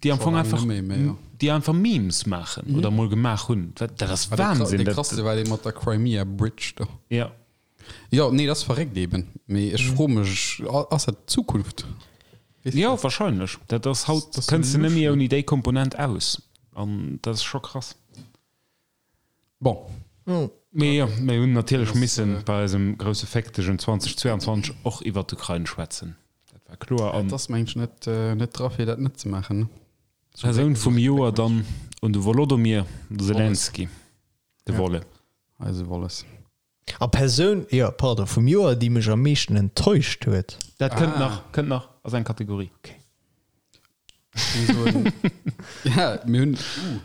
déi am Fong einfach, déi einfach Memes maachen oder mol gemaach hunn. Dat ass Wahnsinn. Dee krasste war dee mat der Crimea Bridge do. Jo. Jo, nee, dat ass verréckt eben. Mee ech froe mech, ass dat d'Zukunft? Jo, wahrscheinlech. Dat ass haut, kënns de net méi ouni déi Komponent aus. An dat ass scho krass. Bon. Mee jo, mir hunn natierlech misse bei eisem grousse Féckdegen 2022 och iwwer d'Ukrain schwätzen. Dat war kloer. An. Et ass, mengen ech, net, net dra fir dat net ze maachen, ne? Persoun vum Joer dann un de Wolodomyr Selenskyj, de Wolle. Eise Wolles. A Persoun, jo, pardon, vum Joer, déi mech am meeschten enttäuscht huet. Dat kënnt nach, kënnt nach, ass eng Kategorie. Okay. Ja, mir hunn, uh,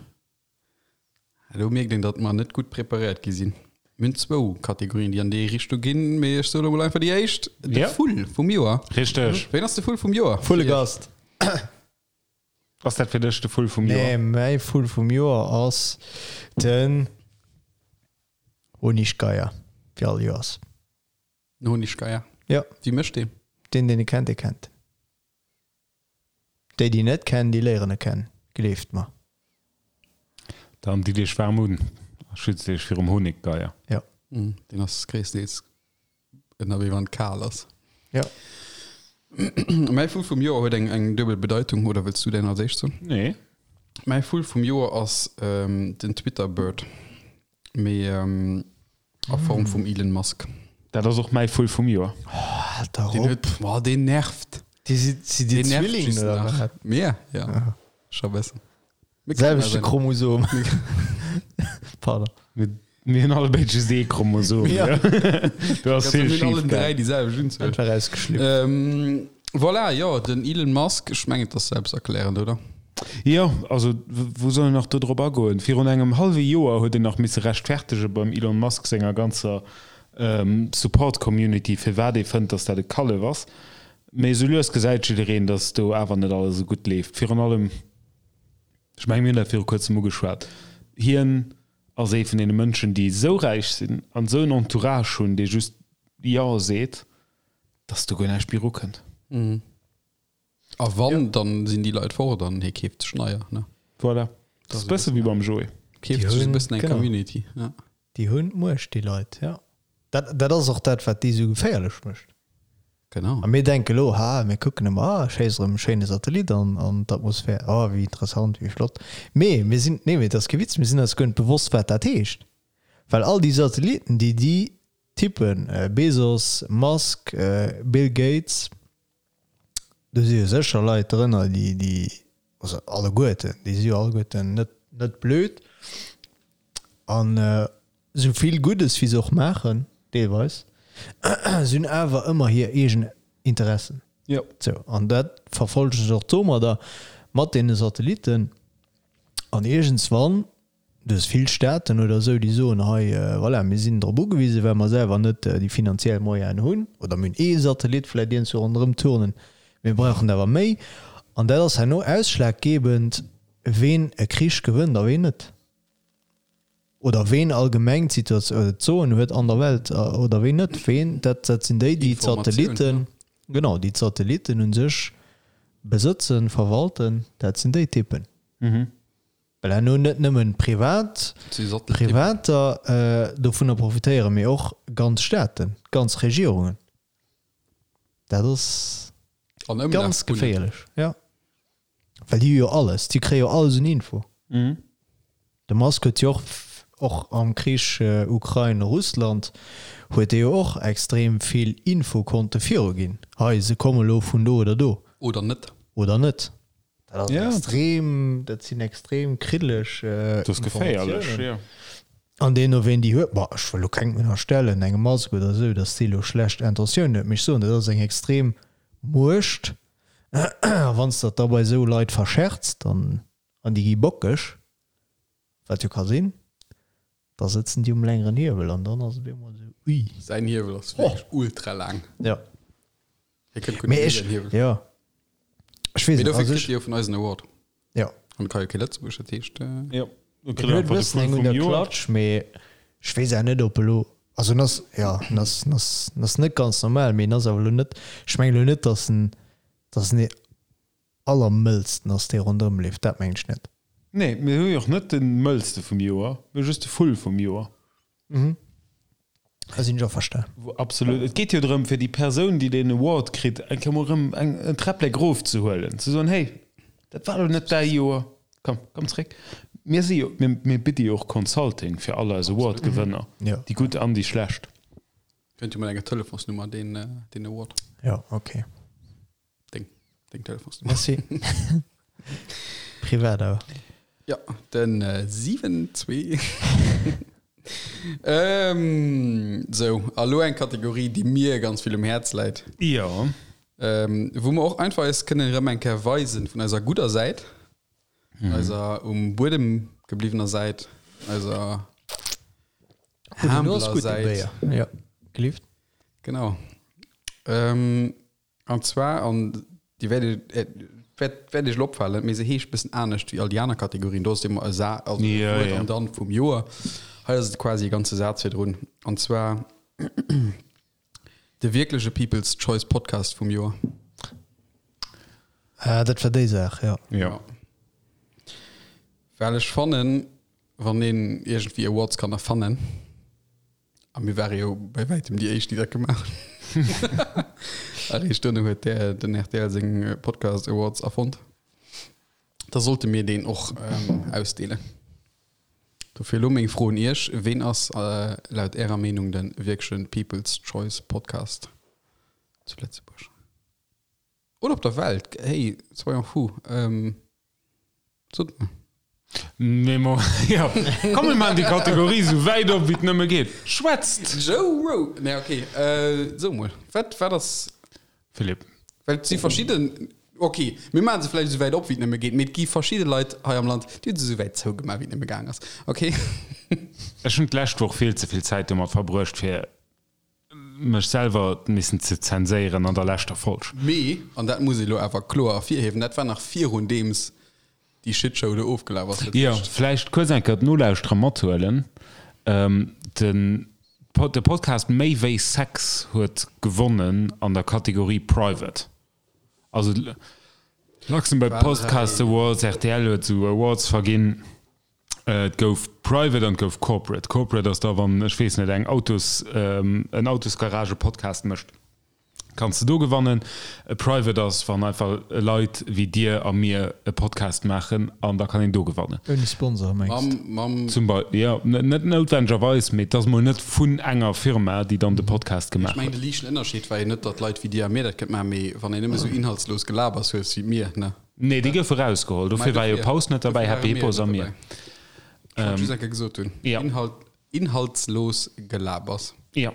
do mierkt een, datt mer net gutt preparéiert gi sinn. Mir hunn zwou Kategorien, déi an déi Richtung ginn, mee ech soe lo mol einfach déi éischt, de Ja. Vull vum Joer. Richteg. Ween ass de Vull vum Joer? Vullegast. Ass dat fir dech de Vull vum Joer? Nee, mäi Vull vum Joer ass den Honiggeier, wéi all Joers. Den Honiggeier? Jo. Wie mécht deen? Deen, deen e kennt, dee kennt en. Déi, déi en net kennen, déi léieren e kennen, gleeft mer. Dann ditt iech waarm un a schützt iech virum Honiggeier. Jo. Deen ass gréisstendeels ënnerwee wann et kal ass. Jo. Mäi Vull vum Joer huet eng eng duebel Bedeitung, oder wëlls du däin als éischt soen? Nee. Mäi Vull vum Joer ass den Twitter Bird, mee a Form vum Elon Musk. Dat ass och mäi Vull vum Joer. Oh, halt dach Deen op. huet, boah, deen nervt. Déi si si dir Deen nervt Zwillingen just oder nach. wat? Mir? Ja. Scho bëssen. Mir kennen Selwechte eis Chromosom. Pardon. Mir mir hunn alle béid just ee Chromosom. Ja. Do ass Mir vill hunn schief allen gaangen. dräi déi selwecht Unzuel. Einfach rausgeschlüpft. Ähm, voilà, jo, den Elon Musk, ech mengen, et ass selbsterklärend, oder? Jo, also wou soll een nach do drop agoen? Virun engem hallwe Joer huet een nach misse rechtfertege beim Elon Musk senger ganzer Support-Community, firwat ee fënnt, datt dat e Kallef ass. Mee esou lues gesäit jiddereen, datt do awer net alles esou gutt leeft. Virun allem, ech mengen, mir hunn dat viru kuerzem ugeschwat, hien ass ee vun deene Mënschen, déi esou räich sinn an esou en Entourage hunn, dee just Jo seet, datt do guer näischt méi erukënnt. A wann, dann sinn déi Leit fort an hie keeft sech neier, ne? Voilà. Dat ass e bësse wéi beim Joé. Keeft sech e bëssen eng Community, ja. Déi hunn d'Muecht, déi Leit, ja. Dat, dat ass och dat, wat déi esou geféierlech mécht. Genau. A mir denke lo, ha, mir kucken ëmmer, ah, schéiss erëm e schéine Satellit an, an d'Atmosphär, oh, wéi interessant, wéi flott. Mee mir sinn, nee, mee et ass kee Witz, mir sinn eis guer net bewosst, wat dat heescht. Well all déi Satellitten, déi déi Typen, Bezos, Musk, Bill Gates, Do si jo sécher Leit drënner, déi, déi, also alleguerten, déi si jo alleguerten net, net blöd. An esou vill Guddes, wéi se och maachen, deelweis, se hunn awer ëmmer hir eegen Interessen. Jo. Sou, an dat verfollegen se och domadder, mat deene Satellitten. An iergendswann Du hues vill Staaten oder esou, déi soen, hei, voilà, mir sinn drop ugewisen, well mer selwer net déi finanziell Moyenen hunn, oder mir hunn ee Satellit vläicht iergendwou ronderëm turnen, mir brauchen der awer méi. An dat ass herno ausschlaggebend, ween e Krich gewënnt a ween net. Oder ween allgemeng d'Situatioun oder d'Soen huet an der Welt oder ween net. Ween, dat, dat sinn déi, déi d'Satellitten, genau, déi d'Satellitten u sech besëtzen, verwalten, dat sinn déi Typen. Well herno net nëmmen privat, Privater dovunner profitéieren, mee och ganz Staaten, ganz Regierungen. Dat ass ganz geféierlech, jo. Well déi hu jo alles, déi kréie jo alles un Info. De Musk huet jo och. Och am Krich Ukrain-Russland huet dee jo och extrem vill Info konnte viruginn, hei se komme lo vun do oder do. Oder net. Oder net. Dat ass extrem, dat sinn extrem kriddeleg Informatiounen. An deemno ween déi huet, bon ech wëll lo kengem ënnerstellen, engem Musk oder esou, datt dee lo schlecht Intentiounen huet, mee ech soen, dat ass eng extrem Muecht a wann s de dat da bei esou Leit verscherz, dann, an déi gi bockeg, wat jo ka sinn, da sëtzen déi um längeren Hiewel an dann ass et op eemol esou, ui. Säin Hiewel ass wierklech ultra laang. Jo. Hie kënnt guer net Mee méi ech, säin Hiewel. jo, ech weess Mee net, dofir also kritt ech, hie jo vun eis en Award. jo. An ka jo kee Lëtzebuerg, dat heescht. Jo, do En kritt huet e einfach de bëssen Vull eng un vum der Joer. Klatsch, mee ech weess awer net, ob elo, also en ass, jo, en ass, en ass, en ass net ganz normal, mee en ass awer elo net, ech mengen elo net, datt en, datt en dee allermëllsten ass, dee ronderëm leeft, dat mengen ech net. Nee, mir hu jo och net de mëllste vum Joer, mir hu just de Vull vum Joer. Da sinn ech averstan. Absolut. Et geet jo drëm, fir déi Persoun, déi deen Award kritt, eng Kéier mol erëm eng, en Träpplek erofzehuelen, ze soen, Hey, dat war elo net däi Joer, komm, komm zréck. Mir si jo, mir, mir bidde jo och Consulting fir all eis Award-Gewënner, Jo. déi gutt an déi schlecht. Kënnt jo mat enger Telefonsnummer, deen, deen Award. Jo, ok. Deng, deng Telefonsnummer. Merci. Privat awer. Ja, den äh, 7, 2. ähm, so, a lo eng Kategorie, déi mir ganz vill um Häerz läit. Jo. Ähm, wou mer och einfach eis kënnen erëm eng Kéier weisen vun eiser gudder Säit, mhm. eiser um Buedem gebliwwener Säit, eiser humbler Säit. Ja, gelift. Genau. Ähm, An zwar, an déi wäert Iech, wäert, wäert Iech elo opfalen, mee se heescht bëssen anescht wéi all déi aner Kategorien. Do ass et ëmmer e Sa, also e Ja, Wuert ja. an dann vum Joer. Hei ass et quasi e ganze Saz virdrun. An zwar de wierkleche People's Choice Podcast vum Joer. Ah, dat war déi Saach, jo. Ja. Well ech fannen, wann een iergendwéi Awards kann erfannen, A mir ware jo bei wäitem déi éischt, déi dat gemaach hunn. Eréischt duerno huet der, den rtl seng Podcast Awards erfonnt. Da sollte mir deen och ähm, ausdeelen. Dofir elo meng Fro un Iech, Ween ass äh, laut Ärer Meenung de wierkleche People's Choice Podcast zu Lëtzebuerg? Oder op der Welt? Hey, soyons fous. Ähm, Sot mer. Nee, mo, ja. Komm, mir maachen déi Kategorie sou wäit op, wéi et nëmme geet. Schwätzt! Joe Rogan. Nee, okay. Äh, so mol. Wat, wat ass. Philippe. Well et si verschidden. Okay, mir maache se vläicht esou wäit op, wéi et nëmme geet, mee et gi verschidde Leit hei am Land, déi hu se esou wäit zougemaach, wéi et nëmme gaang ass. Okay. Ech hunn d'lescht Woch vill ze vill Zäit domat verbruecht, fir mech selwer missen ze zenséieren an der leschter Folg. Mee, an dat muss ee lo awer kloer ervirhiewen, dat war nach virun deems déi Shitshow do ofgelaf ass. Dat Jo, heescht. vläicht kuerz eng Kéier d'Nolauschterer mathuelen. Den de Podcast Méi wéi Sex huet gewonnen an der Kategorie Private. Also Luxembourg Podcast Awards, rtl huet esou Awards verginn. Et gouf Private an et gouf Corporate. Corporate ass da wann, ech weess net, eng Autos, en Autosgarage-Podcast mécht, kanns de do gewannen. E Private ass wann einfach Leit wéi dir a mir e Podcast maachen an da kann een do gewannen. Ouni Sponsor mengs de? Mam. Zum Beispill, jo, net noutwendegerweis, mee et ass mol net vun enger Firma, déi dann de Podcast Ech gemaach mengen huet. de liichten Ënnerscheed war jo net, datt Leit wéi dir a mir dat kënnt maachen, mee wann een nëmme sou inhaltslos Gelabers huet wéi mir, ne? Nee, déi goufe rausgeholl. Dofir war jo Paus net derbäi, Happy Hippos a mir. Ech wollt just eng Kéier gesot hunn. Ja. Inhalt, inhaltslos Gelabers. Ja.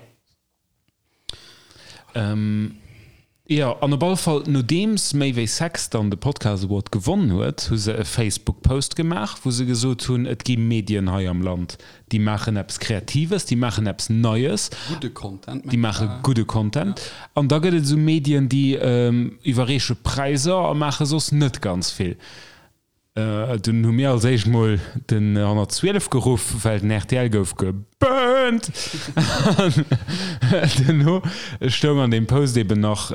Ähm, jo, an op alle Fall, nodeems Méi wéi Sex dann de Podcast Award gewonnen huet, hu se e Facebook-Post gemaach, wou se gesot hunn, et gi Medien hei am Land, déi maachen eppes Kreatives, déi maachen eppes Neies. Gudde Content, Déi maache gudde Content. An da gëtt et esou Medien, déi iwwerreeche Präisser a maache soss net ganz vill. Dunn hu mir als éischt mol den 112 geruff, well den rtl gouf geburnt. An duerno stoung an deem Post eben nach,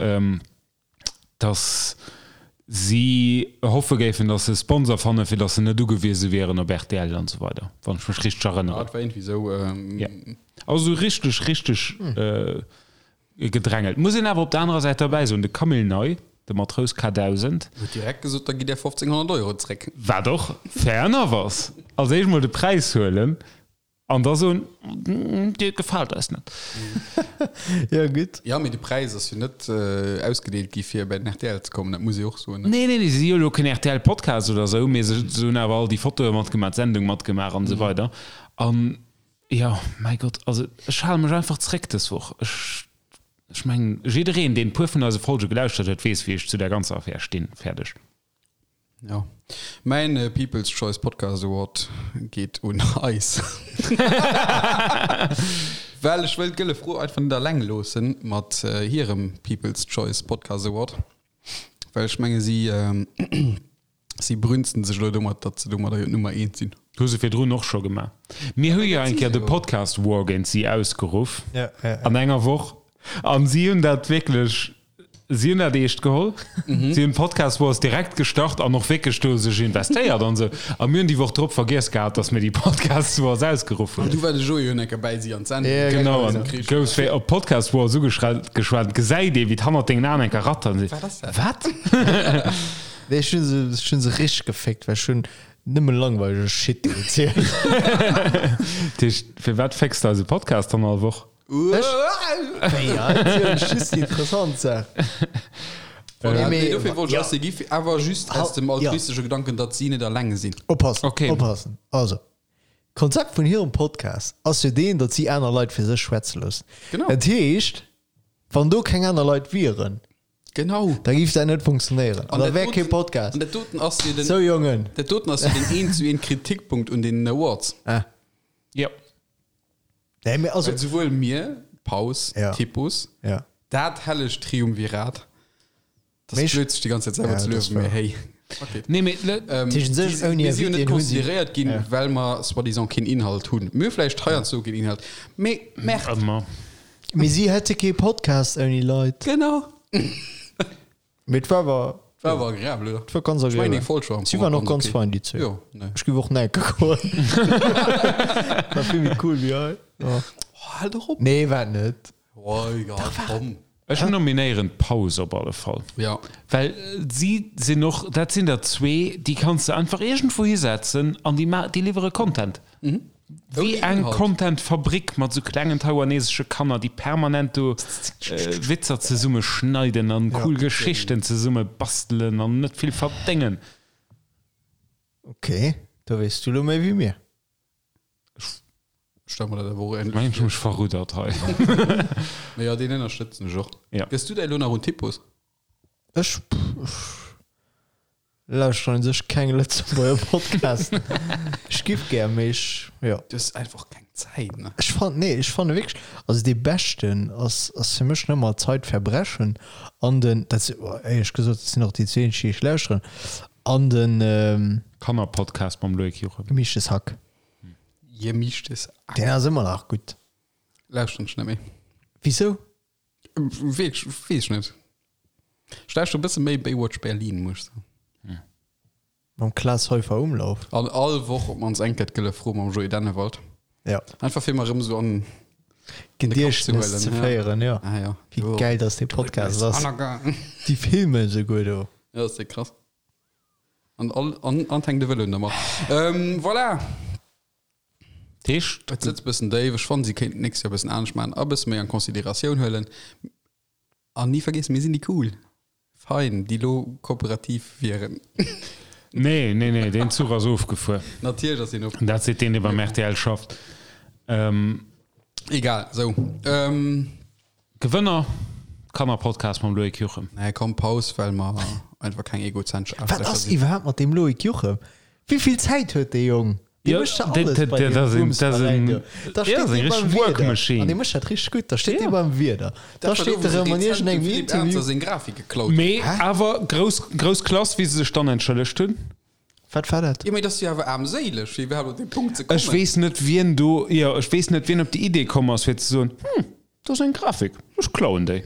dass si hoffe géifen, dass se e Sponsor fannen, fir dass se net ugewiese wieren op rtl an esou weider, wann ech mech richteg Ja, erënneren. et war iergendwéi esou. Ja. Also esou richteg, richteg gedrängelt. Muss een awer op der anerer Säit derbäi soen, de Camille Ney, de Matrous K1000, Huet direkt gesot, da gitt Är 1500 Euro zréck. Wat och fair enough ass. Als éischt mol de Präis huelen. An da soen, Dir gefaalt eis net. Jo, gutt. Jo, mee de Präis ass jo net ausgedeelt gi fir bei den rtl ze kommen, dat muss ee och soen. Nee, nee, nee, si si jo elo keen RTL-Podcast oder esou, mee se hunn awer all déi Fotoe matgemaach, d'Sendung matgemaach an esou weider. An jo, mäi Gott, also ech hale mech einfach zréck dës Woch. Ech, ech mengen, jiddereen, deen e puer vun eise Folge gelauschtert huet, weess, wéi ech zu där ganzer Affär stinn. Fäerdeg. Ja. Mäin People's Choice Podcast Award geet un eis. Well ech wëll d'Gëlle Fro einfach net alleng loossen mat hirem People's Choice Podcast Award. Well ech menge si, si brünzen sech elo domat, datt se domadder jo d'Nummer eent sinn. Hu se virdrun och scho gemaach. Mir hu jo eng Kéier de Podcast War géint si ausgeruff an enger Woch. An si hunn dat wierklech Si hunn dat eescht geholl. Si hunn Podcast Wars direkt gestart an och wierklech do sech investéiert an esou. A mir hunn déi Woch drop vergiess gehat, datt mir déi Podcast Wars ausgeruff hunn. An du war de Joé jo enker bäi si an d'Sendung. Ja, genau. An goufs wéi op Podcast Wars ugeschwat, gesäit ee wéi et hannert dengen Aen enker rattert an seet, Wat ass dat? Wat? Nee, ech hunn se, ech hunn se richteg geféckt, well ech hunn nëmme langweilige Shit erzielt. Dat heescht, firwat fécks de eise Podcast dann all Woch? Ech? Ja, just déi interessant Saach. Voilà, nee, dofir wollt ech eis déi gi, awer just aus dem altruistesche Gedanken, datt si net alleng sinn. Oppassen, okay. Oppassen. Also, d'Konzept vun hirem Podcast ass jo deen, datt si aner Leit fir sech schwätze loossen. Genau. Dat heescht, wann do keng aner Leit wieren, Genau. da géif dat net funktionéieren. An da wär kee Podcast. An dat doten ass jo den, Sou, Jongen. dat doten ass jo den eent zu eent Kritikpunkt un deenen Awards. Ah. Jo. Nee, mee also. Well souwuel mir, Paus, Ja. Typus, Ja. dat hellegt Triumvirat, dat Mee ass ech- blöd, sech déi ganz Zäit selwer Ja, ze dat luewen, ass mee wahr. hey, fuck it. Nee, mee le- Ähm, Tëschent sech déi si- ouni mir si jo net Invité hunn si- consideréiert ginn, Ja. well mer soi-disant keen Inhalt hunn. Mir hu vläicht heiansdo keen Inhalt, mee Merde. Ëmmer. Mee si hätte kee Podcast ouni Leit. Genau. Mee et war awer. War awer agreabel, oder? Et war ganz Ech mengen, agreabel. eng Folg war am Si Fong waren och och ganz okay. fein, déi zwee. Jo, ne. Ech géif och näke goen. War vill méi cool wéi hei. Ja. Oh, hal doch op. Nee, war et net. Oh, egal, komm. Ech nominéieren d'Paus op alle Fall. Ja. Well si sinn och, dat sinn der zwee, déi kanns de einfach iergendwou hisetzen an déi ma déi liwwere Content. Wéi Ouni eng Inhalt. Content-Fabrik mat sou klengen taiwanesesche Kanner, déi permanent do Witzer zesumme schneiden an cool Geschichten zesumme bastelen an net vill verdéngen. Ok, do weess du lo méi wéi mir. Ech stelle mer dat awer och Ech ähnlech mengen, ech vir. hu mech verruddert hei. Mee jo, deen ënnerstëtzen ech och. Ja. Gëss du däi lo nach un Typus? Ech, ech lauschteren un sech keng Lëtzebuerger Podcasten. Ech giff gär, mee ech, jo. Du hues einfach keng Zäit, ne? Ech fannen, nee, ech fanne wierklech, also dee beschten ass, ass fir mech nëmmer Zeitverbrechen an den, dat si, éierlech gesot, dat sinn och déi zwee eenzeg, déi ech lauschteren, an den Kannerpodcast mam Loïc Juchem. Gemischtes Hack. Gemischtes Hack. Deen ass ëmmer nach gutt. Lauschteren ech net méi. Wisou? Weess ech net. Ech lauschteren e bësse méi Baywatch Berlin, muss ech soen. Mam Klaas Heufer Umlauf. An all Woch op mannst eng Kéier d'Gëlle Fro mam Joé Dennewald. Ja. Einfach fir mer erëm esou an Gediechtnes ze féieren, ja. Ah, ja. Wéi gäil dass dee Podcast ass. Déi filmen esouguer do. Ja, dat ass déck krass. An all, an, an hänkt de Vëlo un der Mach. Ähm, voilà. Dat heescht. Et sëtzt bëssen déif. Ech fannen, si kéinten d'nächst Joer bëssen anescht maachen a bësse méi an Consideratioun huelen. An ni vergiessen, mir sinn déi cool Fein, déi lo kooperativ wieren. Nee, nee, nee, deen Zuch ass ofgefuer. Natierlech ass deen ofgefuer. Dat seet deen, dee beim rtl schafft. Ähm. Egal, sou. Ähm. Gewënner, Kannerpodcast mam Loïc Juchem. Nee, komm, Paus, well mer einfach keng egozentrsch Wat Aarschlächer ass sinn. iwwerhaapt mat deem Loïc Juchem? Wéi vill Zäit huet dee Jong? Dee Jo, mécht ja dat- alles dat- bei dat deem ass een- dat ass Bumsveräin een- do. Da ja, steet ass eng dee beim richteg Work Wieder. Machine. An dee mécht dat richteg gutt. Da steet Ja. dee beim Wieder. Da Dat war do, steet wou se erëm an rezent dem iergendengem Philippe Ernzer Interview. seng Grafik geklaut hunn. Mee awer grouss, grouss Klass, wéi se sech dann entschëllegt hunn. Wat war dat? Jo, mee dat ass jo awer aarmséileg, fir iwwerhaapt op dee Punkt ze kommen. Ech weess net, wien do, jo, ech weess net, wien op déi Idee komm ass, fir ze soen, Hm, do ass eng Grafik, ech klauen déi.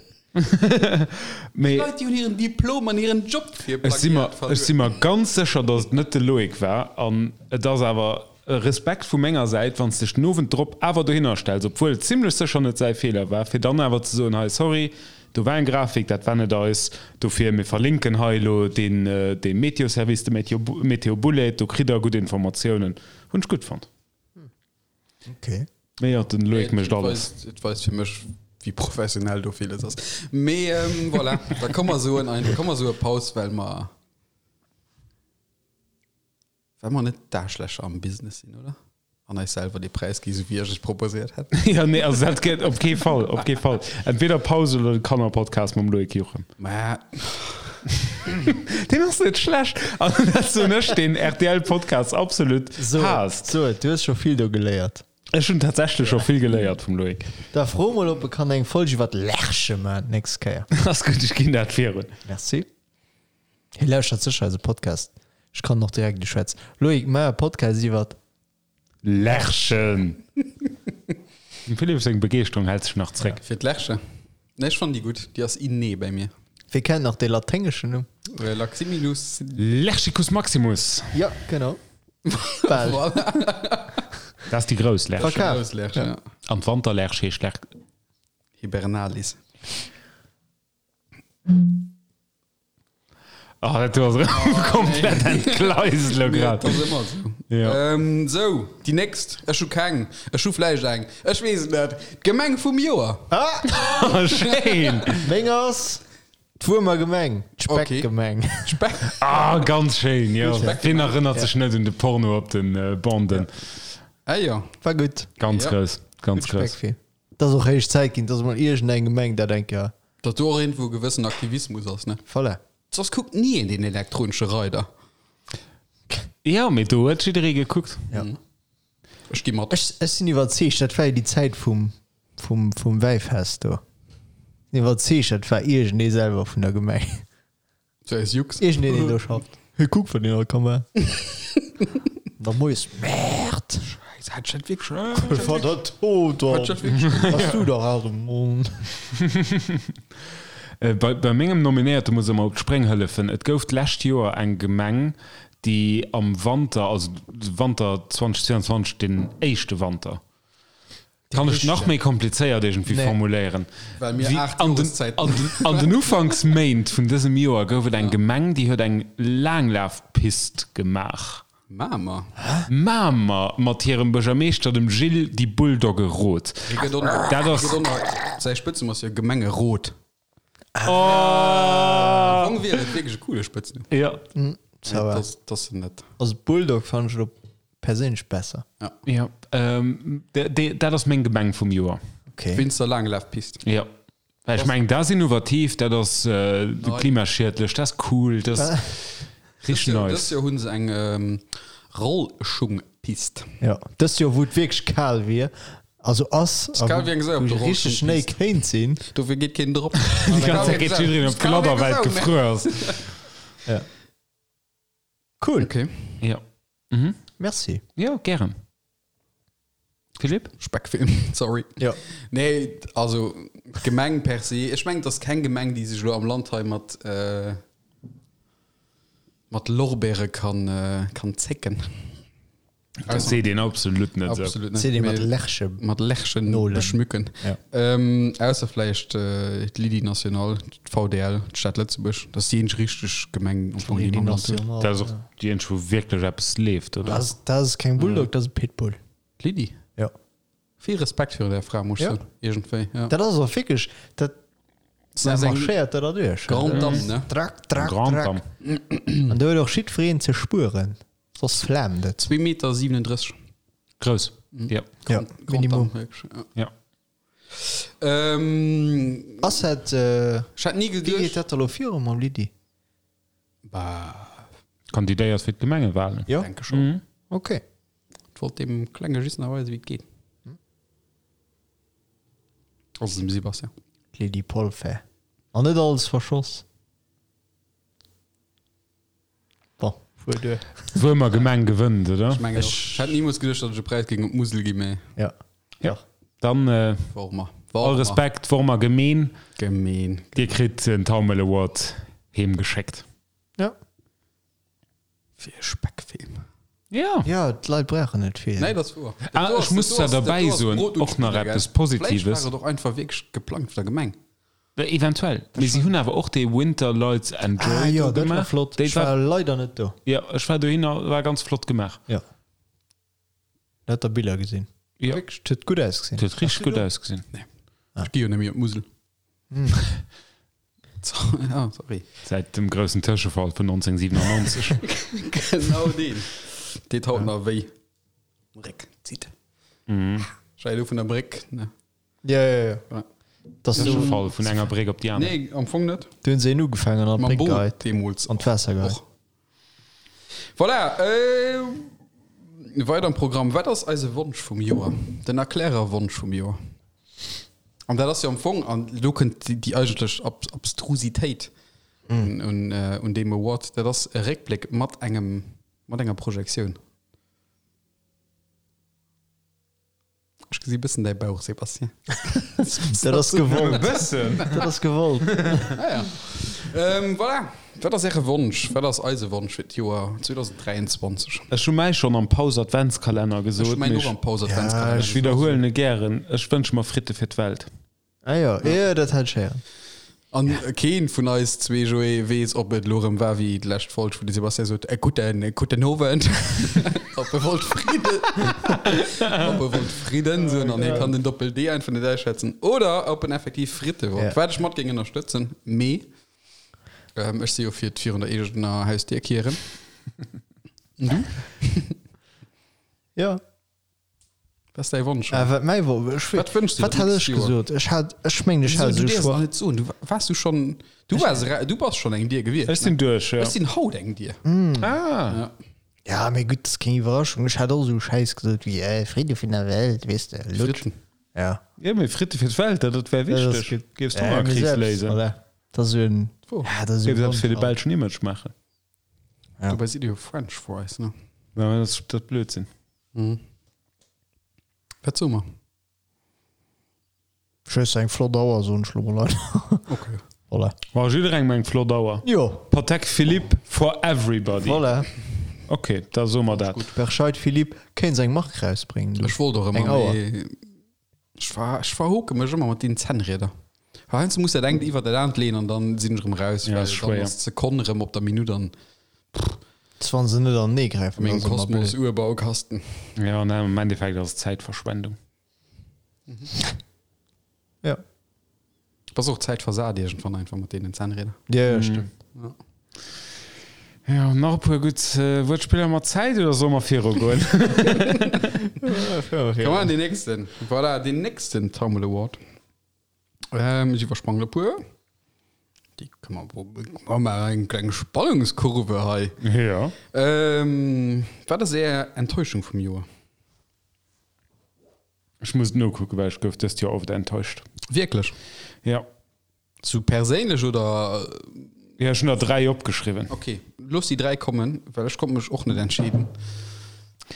Mee Leit, déi hunn hiren Diplom an hiren Job fir ech si mer, Plagiat ech si verluer. mer ganz sécher, datt et net de Loïc war. An et ass awer e Respekt vu menger Säit, wann s dech den Owend drop awer dohinner stells, obwuel et zimlech sécher net säi Feeler war, fir dann awer ze soen, hei, sorry, do war eng Grafik, dat war net eis, dofir, mir verlinken hei elo deen, dee Meteo-Service, de Meteo, Meteo Bullet, do kritt der gutt Informatiounen. Hunn ech gutt fonnt. Okay. Mee jo, den Loïc mécht alles. Et weist fir mech, wéi professionell do villes ass. Mee ähm, voilà, da komm mer soen ein, komm mer soe Paus, well mer well mer net d'Aarschlächer am Business sinn, oder? An eis selwer dee Präis gi, sou wéi ech et proposéiert hätt. Ja, nee, also dat geet op kee Fall, op kee Fall. Entweder Paus oder de Kannerpodcast mam Loïc Juchem. Mä Deen ass net schlecht. An dat soen ech, deen RTL-Podcast absolut haasst. So, du hues scho vill do geléiert. Ech hunn tatsächlech scho vill geléiert vum Loïc. Da fro mol, ob e kann eng Folg iwwer d'Lerche maachen d'nächst Kéier. Ass gutt, ech ginn dat virun. Merci. Hie lauschtert sécher eise Podcast. Ech kann en och direkt uschwätzen. Loïc, maach e Podcast iwwer. Lerchen! Dem Philippe seng Begeeschterung hält sech nach zréck. Fir d'Lerche? Nee, ech fannen déi gutt. Déi ass inné bäi mir. Wie kennt nach dee laténgeschen Numm? Laximilus. Lerchicus maximus! Jo, genau. Bal. Voilà. Dat ass déi grouss Lerch. Verkaf. Grouss Lerch, ja. An d'Wanterlerch heescht Lerch. Hibernalis. Oh, dat do ass erëm komplett entgleist elo grad. Dat ass ëmmer esou. Ja. Ähm, sou, déi nächst. Ech hu keng. Ech hu vläicht eng. Ech weess et net. D'Gemeng vum Joer. Ah, schéin. Meng ass d'Wuermer Gemeng, d'Speckgemeng. Speck. Ah, ganz schéin, jo. Wien erënnert sech net un de Porno op den Banden? Ah jo. War gutt. Ganz Ja. grouss, ganz grouss. Speckfilm. Et ass och héich Zäit ginn, dass mol iergendeng Gemeng dat eng Kéier. Datt do och iergendwou e gewëssen Aktivismus ass, ne? Voilà. Soss kuckt ni een deen elektronesche Reider. Jo, mee do huet jidderee gekuckt. Ja. Ech gi mat. Ech, ech sinn iwwerzeegt, dat war jo déi Zäit vum, vum, vum Wäifest do. Sinn iwwerzeegt, dat war iergendee selwer vun der Gemeng. So aus Jux. Iergendeen, deen do schafft. Hey, kuck, wat een all ka maachen. Da moies, Merde! Scheiße, hat ich dat wierklech. War dat tot Hat ich dat wierklech. Bass du dach aus dem Mond. Bei, bei mengem Nominéierte muss ech mer op d'Spréng hëllefen. Et gouf d'lescht Joer eng Gemeng, déi am Wanter, also Wanter 2022, den éischte Wanter, Kann ech nach méi komplizéiert iergendwéi Nee. formuléieren? Well mir Wéi 8 an den, Joreszäiten an den, an den Ufanksméint vun dësem Joer gouf et eng Gemeng, déi huet eng Laanglafpist gemaach. Mamer. Mamer mat hirem Buergermeeschter, dem Gilles die Bulldogge Roth. Hie gëtt och nach, Dat ass- hie gëtt och nach, säi Spëtznumm ass jo Gemengerot. Oh! Am Fong wier et wierklech e coole Spëtznumm. Ja. Ça va. Das, das net. Also Bulldog fand ech lo perséinlech besser. Ja. Ähm, de, de, dat ass meng Gemeng vum Joer. Okay. Wéinst der Laanglafpist. Ja. Well ech mengen, dat ass innovativ, dat ass äh, klimaschiedlech, dat ass cool, dat ass richtig Dëst nice. Joer hunn se eng ähm, Rollschungpist. Ja, dëst Joer wou et wierklech kal wier, also ass, a kal wéi eng Sau op wou der richteg Schnéi Rollschungpist. kéint sinn. Dofir geet keen drop. Die ganze Zeit geht jiddereen op d'Gladder, well et gefruer ass. Ja. Cool. Okay. Ja. Mhm. Merci. Ja, gären. Philippe? Speckfilm, sorry. Ja. Nee, also Gemeng per se. Ech mengen, et ass keng Gemeng, déi sech elo am Land hei mat, äh, mat Lorbeere kann, äh, kann zécken. Dat seet een absolut net esou. Absolut net. Seet ee mat Mee Lerche. Mat Lerchen Nolen. beschmücken. Ja. Ähm, ausser vläicht äh, d'Lydie Nationale, d'VDL, d'Stad Lëtzebuerg. Dat ass déi eenzeg richteg Gemeng am Fong, déi Lydie mer am Land hunn. Nationale. Dat ass och déi eenzeg, wou wierklech eppes leeft, oder? Dat ass, dat ass keng Bulldog, dat ass e Pitbull. D'Lydie? Ja. Vill Respekt virun där Fra, muss ech Ja. soen. Iergendwéi, ja. Dat ass och wierklech, dat Dat ass eng marschéiert dat derduerch. Grande Dame, ne? Drack, drack, Grande drack. Dame. An do huet och jiddwereen ze spueren, soss flaamt et. 2 Meter 37. Grouss. Ja. Ja, Grande Minimum. Dame, wierklech, ja. Ja. Ähm, Ass dat, äh, ech hätt ni wéi geet geduecht. dat da lo viru mam Lydie? Bah, Kandidéiert fir d'Gemengewahlen. Jo? denke schon. Mhm. Okay. Ich wollt dem Klenge just nach weisen, wéi et geet. Also dem Sebastian. D'Lydie Polfer. An net alles verschoss. Bon, fuer duer. Wuermer Gemeng gewënnt, oder? Ech mengen och. Ech hätt nimools geduecht, datt ech e Präis géing op d'Musel ginn, mee Ja. Ja. Dann äh, Wormer. all Wormer. Respekt, Wormer Gemeen. Gemeen. Dir kritt den Taumel Award heemgeschéckt. Ja. Fir e Speckfilm. Ja. Ja, d'Leit brauchen net vill. Nee, dat ass wouer. Ah, ech muss zwar derbäi soen, och nach eppes Positives. Vläicht war et och einfach wierklech geplangt vun der Gemeng. Eventuell. Mee si hunn awer och dee Winter Lights and Joy Ah jo, do dat war gemaach. flott. Déi Ech war war, leider net do. ja, ech war dohinner, war ganz flott gemaach. Ja. Lauter Biller gesinn. Jo. Wierklech, et huet gutt ausgesinn. Et huet richteg gutt ausgesinn. Nee. Ech gi jo net méi op d'Musel. Ja, sorry. Säit dem groussen Tëschefall vun 1997. Genau deen. Deet haut nach wéi. Réck zitt. Ech war jo do vun der Bréck, ne? Ja, ja, ja. Ja. Das du, Tëschefall vun enger Bréck op déi aner. Nee, am Fong net. du hunn se een ugefaangen an Mam d'Bréck Boot geheit. deemools. An d'Waasser geheit. Och. Voilà, äh, weider am Programm. Wat ass eise Wonsch vum Joer? Den Erklärerwonsch vum Joer. An dat ass jo am Fong, an do kënnt déi, déi eigentlech Ab Abstrusitéit un, un, äh, un deem Award, dat ass e Réckbléck mat engem, mat enger Projektioun. Ech gesi bëssen däi Bauch, Sébastien. Dat ass gewollt. E bëssen. Dat ass gewollt. Ah ja. Ähm, voilà. Wat ass Äre Wonsch? Wat ass eise Wonsch fir d'Joer 2023? Ech hu mäi schonn am Paus-Adventskalenner Ech gesot, hu mäin mee och am Paus-Adventskalenner ech widderhuelen e gären, Ech wënsche mer Fritte fir d'Welt. Ah jo, jo, dat hat ech héieren. An keen vun eis zwee, Joé, weess, ob et elo erëm war wéi d'lescht Folg, wou de Sébastien sot, e gudden, gudden Owend, ob e wollt Fridden, ob e wollt Fridden soen an hie kann den Doppel-D einfach net ausschwätzen, oder ob en effektiv Fritte wollt, Ja. wat ech mat géing ënnerstëtzen, mee ech si jo fir d'virun der eegener Hausdier kieren. An du? Jo. Wat ass däi Wonsch? Äh, wat mäi Wo ech, Wat wënschs du wat dir hat d'nächst ech Joer? gesot? Ech hat, ech mengen, ech Wieso, hat du esou däerfs schwa nach net soen. Du waars du schonn, du waars era, du bass schonn eng Dier gewiescht, Ech sinn ne? duerch, jo. Ech sinn haut eng Dier. Ah. Ja. Ja, mee gutt, dat ass keng Iwwerraschung. Ech hat och esou Schäiss gesot wéi, äh, Fridde vun der Welt, weess de, Lutsch. Fritten. Ja. Jo, mee Fritte fir d'Welt, dat, dat wär Dat ass wichteg. gutt. Géifs Ja, mee d'Hongerkris selbst, léisen. voilà. Dat ass esou en, Wo? ja, dat ass esou Géifs en eppes fir de Wonsch. belschen Image maachen. Ja. Dobäi sidd Dir jo French Fries, ne? Ja, dat ass dat Blödsinn. Mhm. Wat soe mer? Ech hues eng flott Auer, soen ech lo mol einfach. Okay. Voilà. War jidderengem eng flott Auer. Jo. Patek Philippe for everybody. Voilà. Ok, da soe mer dat. Berscheid Philippe kéint seng Mark rausbréngen du. Ech wollt och Eng ëmmer, Auer. mee ech ver, ech verhoke mech ëmmer mat deenen Zännrieder. Well heiansdo muss dat engt iwwer dat aant leeën an dann sinn ech erëm raus, Ja, well ass dann schwéier. ass d'Sekonn erëm op der Minutt an Wann se net anenee gräifen, mengem ass ëmmer blöd. Kosmos-Urbaukasten. Ja, an am Endeffekt ass et Zäitverschwendung. Ja. Bass och Zäit versat iergendwann einfach mat deenen Zännrieder. Ja, ja, stëmmt. Ja, nach e puer gutt Wuertspiller mat Zäit oder solle mer virugoen? Komm an deen nächsten. Voilà, deen nächsten Taumel Award. Ähm, ech iwwersprangen e puer. Déi kënne mer, mer maachen eng kleng Spannungskurve hei. Ja. Ähm, wat ass Är Enttäuschung vum Joer? Ech muss et nokucken, well ech gouf dëst Joer oft enttäuscht. Wierklech? Ja. Sou perséinlech oder? Ja, ech hunn der 3 opgeschriwwen. Ok, looss déi 3 kommen, well ech konnt mech och net entscheeden.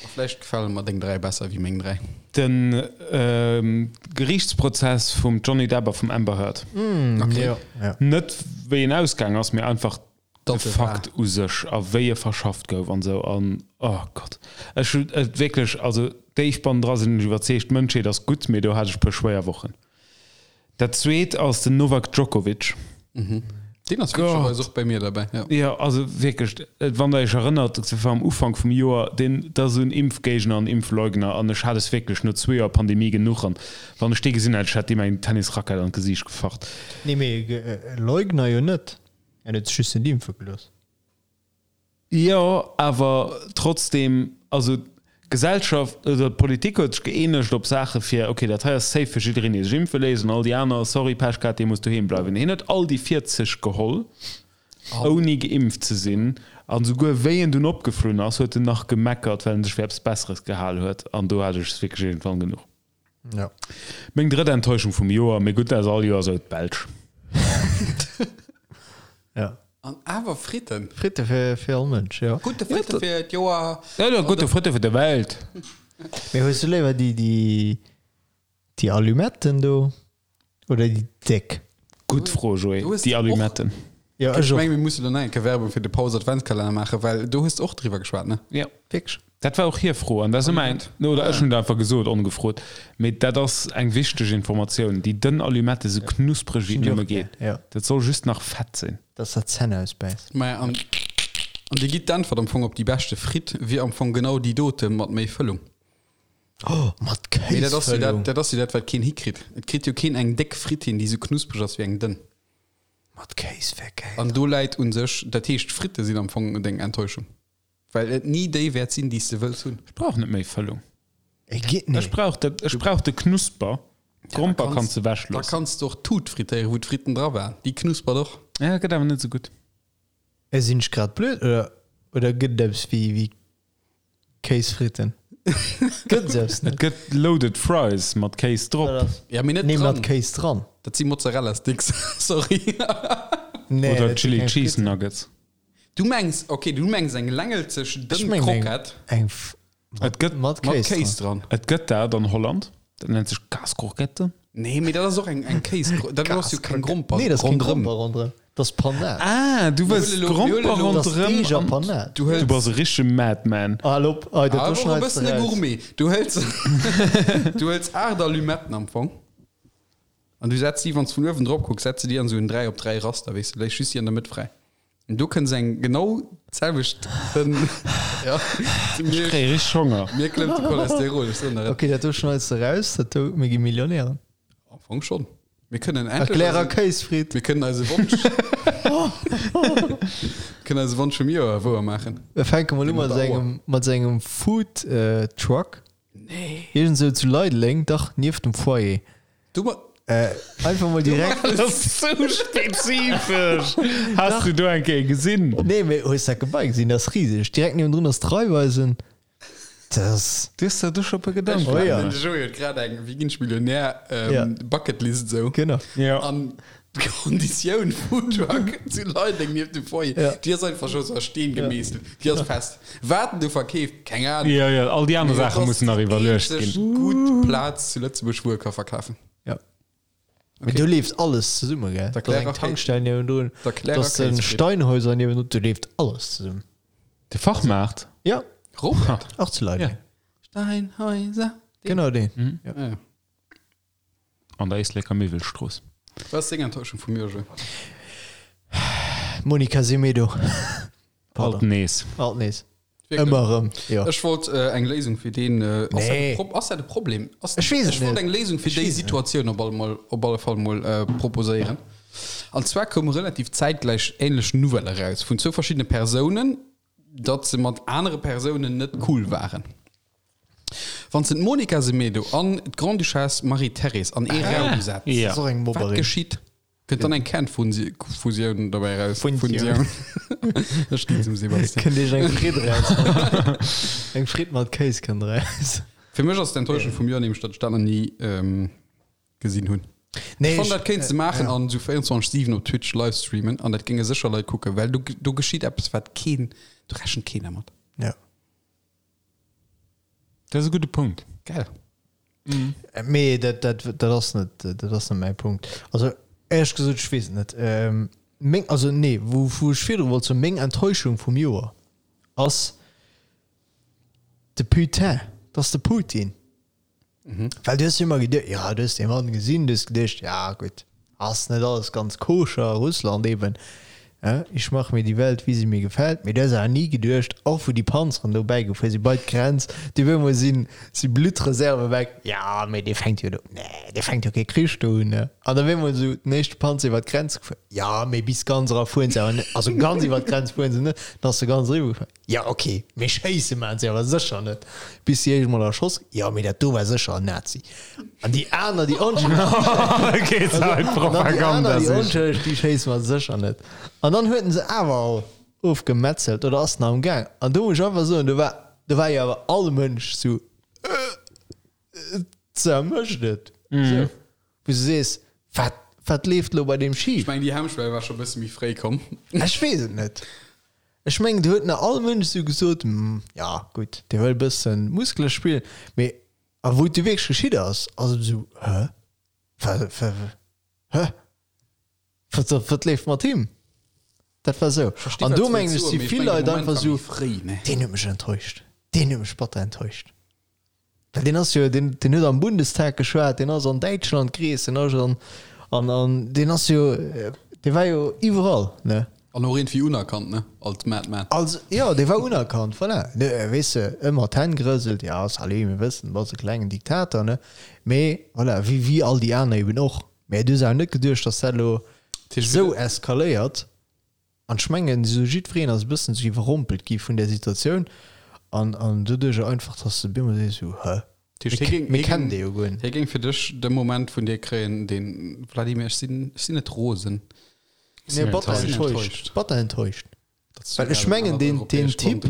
A vläicht gefale mer deng 3 besser wéi meng 3. De Geriichtsprozess vum Johnny Depp a vum Amber Heard. Ok. Ja, ja. Net wéi en ausgaang ass, mee einfach de Datt e war. Fakt u sech a wéi e verschafft gouf an esou an oh Gott. Ech hunn et wierklech, also déif bannendra sinn ech iwwerzeegt, d'Mënschheet ass gutt, mee do hat ech e puer schwéier Wochen. Dat zweet ass den Novak Djokovic. Deen ass witzegerweis och bei mir derbäi, jo. Jo, also wierklech, wann der iech erënnert, dat war am Ufank vum Joer, deen, dat ass esou en Impfgéigner an Impfleugner an ech hat es wierklech no zwee Joer Pandemie genuch an wann ech dee gesinn hätt, ech hätt deem eng Tennisrackett an d'Gesiicht gefacht. Nee, mee Leugner jo net, en huet sech just net impfe gelooss. Jo, awer trotzdem, also d'Gesellschaft oder d'Politik huet sech gëeenegt op Saache fir, okay, dat hei ass safe fir jiddereen, dee sech impfe léisst, an all déi aner, sorry, Pech gehat, dee muss doheem bleiwen. Hien huet all déi 40 geholl, ouni geimpft ze sinn, an esouguer wéi en dunn opgeflunn ass, huet en nach gemeckert, well en sech fir eppes Besseres gehal huet, an do hat ech es wierklech iergendwann genuch. Ja. Meng drëtt Enttäuschung vum Joer, mee gutt, dat ass all Joer esou, d'Belsch. Ja. An awer Fritten. Fritte fir, fir all Mënsch, jo. Gute Fritte fir d'Joer. Ja, ja, gute Fritte fir de Welt. Mee hues du léiwer déi, déi, déi Allumetten do oder déi déck? Gutt Fro, Joé. Du hues Déi och- Allumetten. Jo, Ech ech och. meng, mir mussen do nach eng Kéier Werbung fir de Paus Adventskalenner maachen, well do hues de och driwwer geschwat, ne? Ja. Wierklech? Dat war och hir Fro an dat ass ëmmer eng, oder ech hunn et einfach gesot, ongefrot, mee dat ass eng wichteg Informatioun, déi dënn Allumette esou knuspreg wéi et nëmme geet, Ja. dat soll just nach Fett sinn. Dass der d'Zänn ausbäisst. Maja, an, an dir gitt d'Äntwert am Fong op déi beschte Fritt wier am Fong genau déi dote mat méi Fëllung. Oh, mat Mee dat ass jo dat, Kéisfëllung. dat ass jo dat, wat keen hikritt. Et kritt jo keen eng déck Fritt hin, déi esou knuspreg ass wéi eng dënn. Mat Kéis wär gäil. An do läit u sech, dat heescht, d'Fritte sinn am Fong deng Enttäuschung, well et ni déi wäert sinn, déi s de wëlls hunn. Ech brauch net méi Fëllung. Et geet net. Ech brauch dat, ech brauch de Knusper. D'Gromper kanns de Da ewechloossen. kanns de och d'Tut frittéieren, wou d'Fritten dra waren. Déi knuspert och. Ja, gëtt awer net esou gutt. Sinn ech grad blöd oder, oder gëtt et eppes wéi, wéi Kéisfritten? Gëtt et eppes Et net? gëtt Loaded Fries mat Kéis drop. Ja, mee net Nee, mat dran. Kéis dran. Dat si Mozzarella Sticks, sorry. Nee, Oder dat si Chili keng Cheese Fritten. Nuggets. Du mengs, okay, du mengs eng längelzeg Ech dënn mengen eng, Krokett eng F Et gëtt mat mat Kéis Kéis dran. dran. Et gëtt dat an Holland. Dat nennt sech Kaaskrokette. Nee, mee dat ass och eng, eng Kéis, dat ass jo keng Gromper Nee, dat ass keng ronderëm. Gromper ronderëm. Dat ass Panade. Ah, du wëlls Mir huele lo- mir huele Gromper lo- Dat ass ronderëm Deeg a an Panade. Du hëls Du bass e richtege Madman. Hal op, oh, dat do awer och e schneits de bëssen e raus. Gourmet. Du hëls, du hëls 8 Allumetten am Fong an du setz déi, wann s vun uewen drop kucks, setz de déi an esou en 3 op 3 Raster, weess de, léiss just déi an der Mëtt fräi. An do kënns eng genau d'selwecht dënn, ja, Ech kréie richteg Honger. mir klëmmt de Cholesterol, ech soen der et. Okay, dat do schneits de raus, dat do, mir gi Millionären. Am Fong schonn. Mir kënnen endlech Erklärer eisen, Kéisfritt. mir kënnen eise Wonsch, kënnen eise Wonsch vum Joer wouer maachen. Mir fänke mol u Dee mat mat der Auer. sengem, mat sengem Food Truck. Nee. Iergend sou zu Leideleng, dach, nieft dem Foyer. Du ma. Äh, einfach mol direkt. Dat ass sou spezifesch! Has du do eng Kéier gesinn? Nee, mee hues dat Gebai gesinn? Dat ass riseg. Direkt niewendrun ass d'Raiffeisen. Dat ass. Du hues der do scho e puer Gedanken Oh ja. gemaach. De Joé huet grad eng Wéi ginn ech Millionär Ja. Bucketlist esou. Genau. Ja. An d'Konditioun Foodtruck zu Leideng nieft dem Foyer, Ja. déi ass einfach scho sou a Steen gemeesselt. Déi ass fest. Wat en do verkeeft, keng Ahnung. Ja, ja, all déi aner Mee dat Saache ass mussen nach déi iwwerluecht eenzeg ginn. gutt Plaz zu Lëtzebuerg, wou e ka verkafen. Ja. Mee do leeft alles zesumme, gell? Der Da ass eng Klärer Tankstell niewendrun, Der da Klärer ass den Kéisfritt. Steinhäuser niewendrun, do leeft alles zesummen. De Fachmaart? Ja, Robert? och zu Leideng. Ja. Steinhäuser. Genau deen. Ja. Ja. An der Éisleker Miwwelstrooss. Was ass deng Enttäuschung vum Joer, Joé? Monica Semedo. Alt nees. Alt nees. Wierklech? Ëmmer erëm, jo. Ech wollt äh, eng Léisung fir deen. Äh, ass Nee. dat e Pro ass dat e Problem? Ass, Ech weess et ech wollt net. eng Léisung fir Ech déi weess et net. Situatioun op alle, mol, op alle Fall mol äh, proposéieren. An zwar koume relativ zäitgläich ähnlech Nouvelle eraus vun zwou verschiddene Persounen, datt se mat anere Persounen net cool waren. Wann s de d'Monica Semedo an d'Grande-Duchesse Marie-Thérèse an ee Raum setz, Ja. Das ass och eng wat Mobberin. geschitt? Kënnt dann eng Kernfusioun dobäi eraus? Funsioun. Ech ginn zum Sebastian. Kënnt iech eng Fritt eraus. Eng Fritt mat Kéis kënnt eraus. Fir mech ass d'Enttäuschung vum Joer nämlech, datt ech dat nach ni ähm, gesinn hunn. Nee, Ech fannen, dat kéints de maachen ja. an esou 24/7 op Twitch livestreamen an dat géinge sécher Leit kucken, well do, do geschitt eppes, wat keen, do rechent keen dermat. Ja. Dat ass e gudde Punkt. Geil. Mee dat, dat, dat ass net, dat ass net mäi Punkt. Also éierlech gesot, ech weess et net. Ähm, meng, also nee, wou, wou ech virdru wollt soen, meng Enttäuschung vum Joer ass de Putin, dat ass de Putin. Well du hues jo ëmmer geduecht, ja, du hues dee Mann gesinn, du hues geduecht, ja gutt, ass net alles ganz koscher a Russland eben, ja, ich mache mir die Welt, wie sie mir gefällt. Mee du hues awer ni geduecht, och wou déi Panzeren do bäigefuer si bei d'Grenz, déi op eemol sinn, si Bluttreserve weg, ja, mee dee fänkt jo do, nee, dee fänkt jo kee Krich do un, ne. An op eemol esou den éischte Panzer iwwer d'Grenz gefuer, ja, mee bis ganz era fueren se awer net, also ganz iwwer d'Grenz fueren se net, dann ass se ganz eriwwer gefuer. Ja ok, mee schéisse maan se awer sécher net, bis si éischt mol erschoss. Jo mee dat do war sécher en Nazi. An déi aner déi onschëlleg, Geet hei an dann déi aner Propaganda déi sich. onschëlleg, déi schéisse mer sécher net. An dann huet en se awer all ofgemetzelt oder ass nach am Gaang. An do muss ech einfach soen, do war do war jo awer all Mënsch sou, äh, ze mécht et. Sou, wou s du sees, wat wat leeft lo bei deem schif? Ech mengen, déi Hemmschwell war scho e bësse méi fréi komm. Ech weess et net. Ech mengen, do huet nach all Mënsch esou gesot, Hm, ja, gutt, dee wëll e bëssen Muskele spillen. Mee a wou et du wierklech geschitt ass, ass et esou, Hä? Wa, wa, hä? Wat, wat, wat leeft mat him? Dat war esou. An do mengen ech, si vill Leit einfach esou, Deen huet mech enttäuscht. Deen huet mech batter enttäuscht. Well deen ass jo, deen, deen huet am Bundestag geschwat, deen ass an Däitschland gereest, deen ass an, an, an deen ass jo, dee war jo iwwerall, ne? An och iergendwéi unerkannt, ne? Als Madman. Als, jo, dee war unerkannt, voilà. Ne, weess de, ëmmer d'Hänn gerëselt, ja, salut, mir wëssen, bass e klengen Diktator, ne? Mee voilà, wéi, wéi all déi aner eben och. Mä du hues awer net geduecht, datt dat elo esou eskaléiert. An ech mengen, esou jiddwereen ass e bëssen esou iwwerrompelt gi vun där Situatioun an, an doduercher einfach, datt s de op eemol sees esou, Hä? Mir kennen dee jo guer net. Hie géing fir dech de Moment vun dir kréien, deen, Vladimir, ech sinn, ech sinn net rosen. Nee, batter enttäuscht. Batter enttäuscht. Well ech mengen, deen, deen Typ,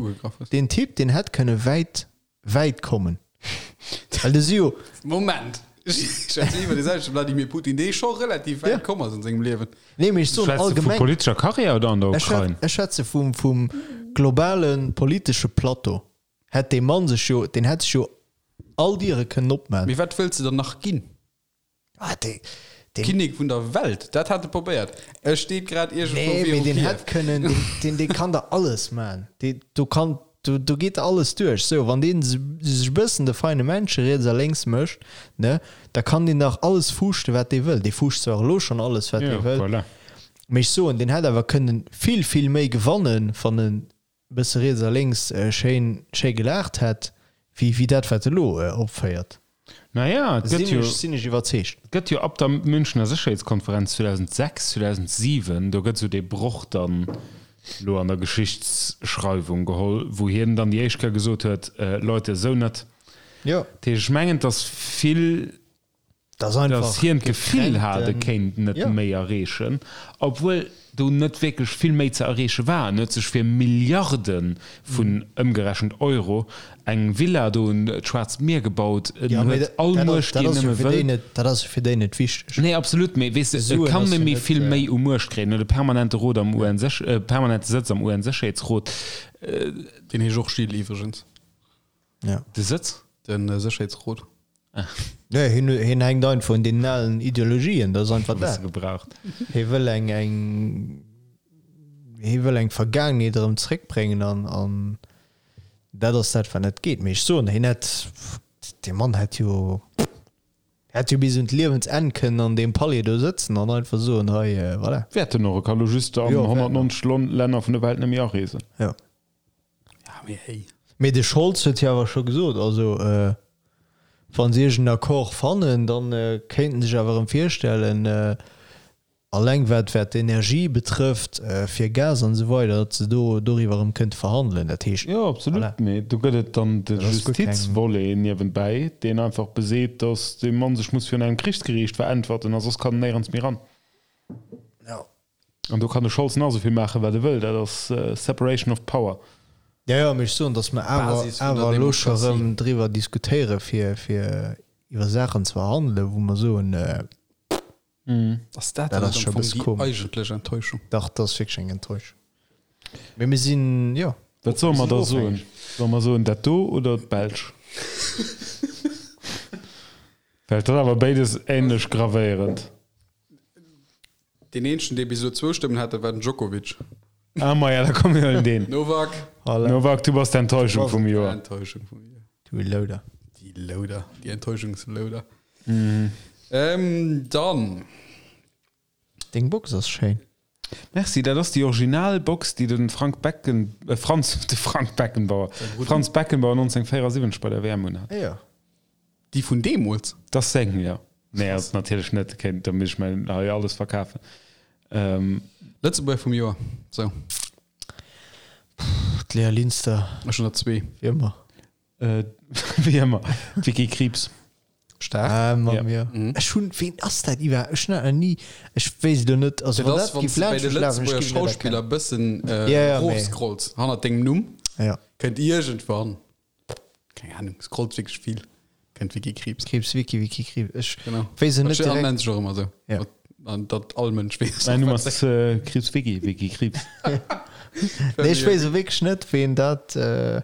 deen Typ, deen hätt kënne wäit, wäit kommen. Well de si jo. Moment! Ech schwätzen iwwer dee selwechte Vladimir Putin, dee scho relativ wäit komm ass an sengem Liewen. Nee, mee ech soen Schwätz de vu allgemeng. politescher Karriär oder an der Ukrain? Ech schwätze vum, vum globale politesche Plateau. Hätt dee Mann sech jo, deen hätt sech jo all Diere kënnen opman. Mee wat wëlls de dann nach ginn? Ah, dee, deen. Kinnek vun der Welt, dat hat e probéiert. E steet grad iergendwou Nee, mee viru deen Kiew. hätt kënnen, deen, deen, dee kann der alles man. Dee, do kann, do, do geet der alles duerch. Sou, wann deen sech e bëssen de feine Männche riets a lénks mécht, ne, da kann deen dach alles fuuschten, wat dee wëll. Dee fuuscht zwar elo schonn alles, wat dee Jo, wëll. voilà. Mee ech soen, deen hätt awer kënnen vill, vill méi gewannen, wann en bësse riets a lénks schéin schéi gelaacht hätt, wéi wéi dat wat e lo opféiert. Naja, et gëtt jo, Sinn ech iwwerzeegt. et gëtt jo ab der Münchener Sécherheetskonferenz 2006, 2007, do gëtt esou dee Broch dann elo an der Geschichtsschreiwung geholl, wou hien dann déi éischt Kéier gesot huet, Leute, esou net. Jo. Dat heescht, ech mengen, et ass vill Dass hien d'Gefill hat, e kéint net méi erreechen, obwuel do net wierklech vill méi ze erreeche war. En huet sech fir Milliarde vun, ëmgerechent, Euro eng Villa do un d'Schwaarzt Mier gebaut. En huet all Muecht, déi en nëmme wëll. Dat ass jo fir déi net wichteg. Nee, absolut, mee weess de, e kann net méi vill méi u Muecht kréien. En huet e permanente Rot am UN-Séch-, permanente Sëtz am UN-Sécherheetsrot. Deen heescht och Gilles iwwregens. Ja. De Sëtz? Den Sécherheetsrot. Nee, hien, hien hänkt einfach un deenen alen Ideologien, dat ass einfach dat. Gebraucht. Hie wëll eng, eng, hie wëll eng Vergaangenheet erëm zréckbréngen an, an dat ass dat, wat net geet. Mee ech soen, hien hätt, dee Mann hätt jo, hätt jo bis un d'Liewensenn kënnen an deem Palais do sëtzen an einfach soen, hei, voilà. Wäert en och, e ka lo just an 190 Länner vun der Welt net méi areesen. Jo. Ja, mee hey. Mee de Scholz huet jo awer scho gesot, also wa se iergend en Accord fannen, da kéinten sech awer erëm virstellen, alleng wat wat d'Energie betrëfft, fir Gas an esou weider, datt se do doriwwer erëm kënnte verhandelen. Dat heescht, Jo, absolut, voilà. mee do gëtt et dann de Dat ass guer keng. Justizvolet niewenbäi, deen einfach beseet, datt dee Mann sech muss virun engem Krichsgeriicht veräntwerten a soss kann en néierens méi ran. Jo. An do kann de Scholz nach esou vill maachen, wat e wëll, dat ass Separation of Power. Jo, jo, mee ech soen, datt mer awer, Basis vun der awer elo scho Demokratie. erëm driwwer diskutéiere fir, fir iwwer Saachen ze verhandelen, wou mer soen, Ass dat Dat dann ass net scho am e Fong bësse déi komesch. eigentlech Enttäuschung? Dach, dat ass wierklech eng Enttäuschung. Mee mir sinn, jo. Wat solle mer Mir da sinn soen? ofhängeg. Solle mer soen dat do oder d'Belsch? Well et ass awer béides änlech gravéierend. Deen eenzegen, dee bis elo zwou Stëmmen hat, dat war den Djokovic. Ah, maja, da komm mir huelen deen. Novak. Voilà. Novak, du bass d'Enttäuschung vum Joer. Enttäuschung vum Joer. Du Louder. Déi Louder, déi Enttäuschungslouder. Mhm. Ähm, dann. Deng Box ass schéin. Merci, dat ass déi original Box, déi de Frank Becken, äh, Franz, de Frank Beckenbauer, Franz Beckenbauer 1974 bei der WM unhat. Ah, ja. Déi vun deemools? Dat ass seng, jo. Nee, ass natierlech net. Kéint, da misst ech mäin hei alles verkafen. Ähm. Lëtzebuerger vum Joer, sou. D'Léa Linster. Ech hunn der zwee. Wéi ëmmer. Äh, wéi ëmmer. D'Vicky Krieps. Staark. Ah, Mann, Ja. jo. Ech hunn, ween ass dat iwwer? Ech hunn dat nach ni, ech weess et elo net. Also, Dat wann ass, dat wann géif s de bei laanscht de mech lafen, ech Lëtzebuerger géif et net Schauspiller erkennen. bëssen äh, Ja, ja, mee. rofscrolls hannert dengem Numm, Ja. kënnt iergendwann Keng Ahnung, scrollt wierklech vill. Kennt Wiki Kriibs. Kriibs, Wiki, Wiki, Kriibs. Ech Genau. weess et Dat net steet direkt. an nennt sech och ëmmer esou. Ja. An datt all Mënsch weess. Mäin Numm ass äh, Kriibs Wiki, Wiki Kriibs. Nee, ech weess wierklech net, ween dat. Äh,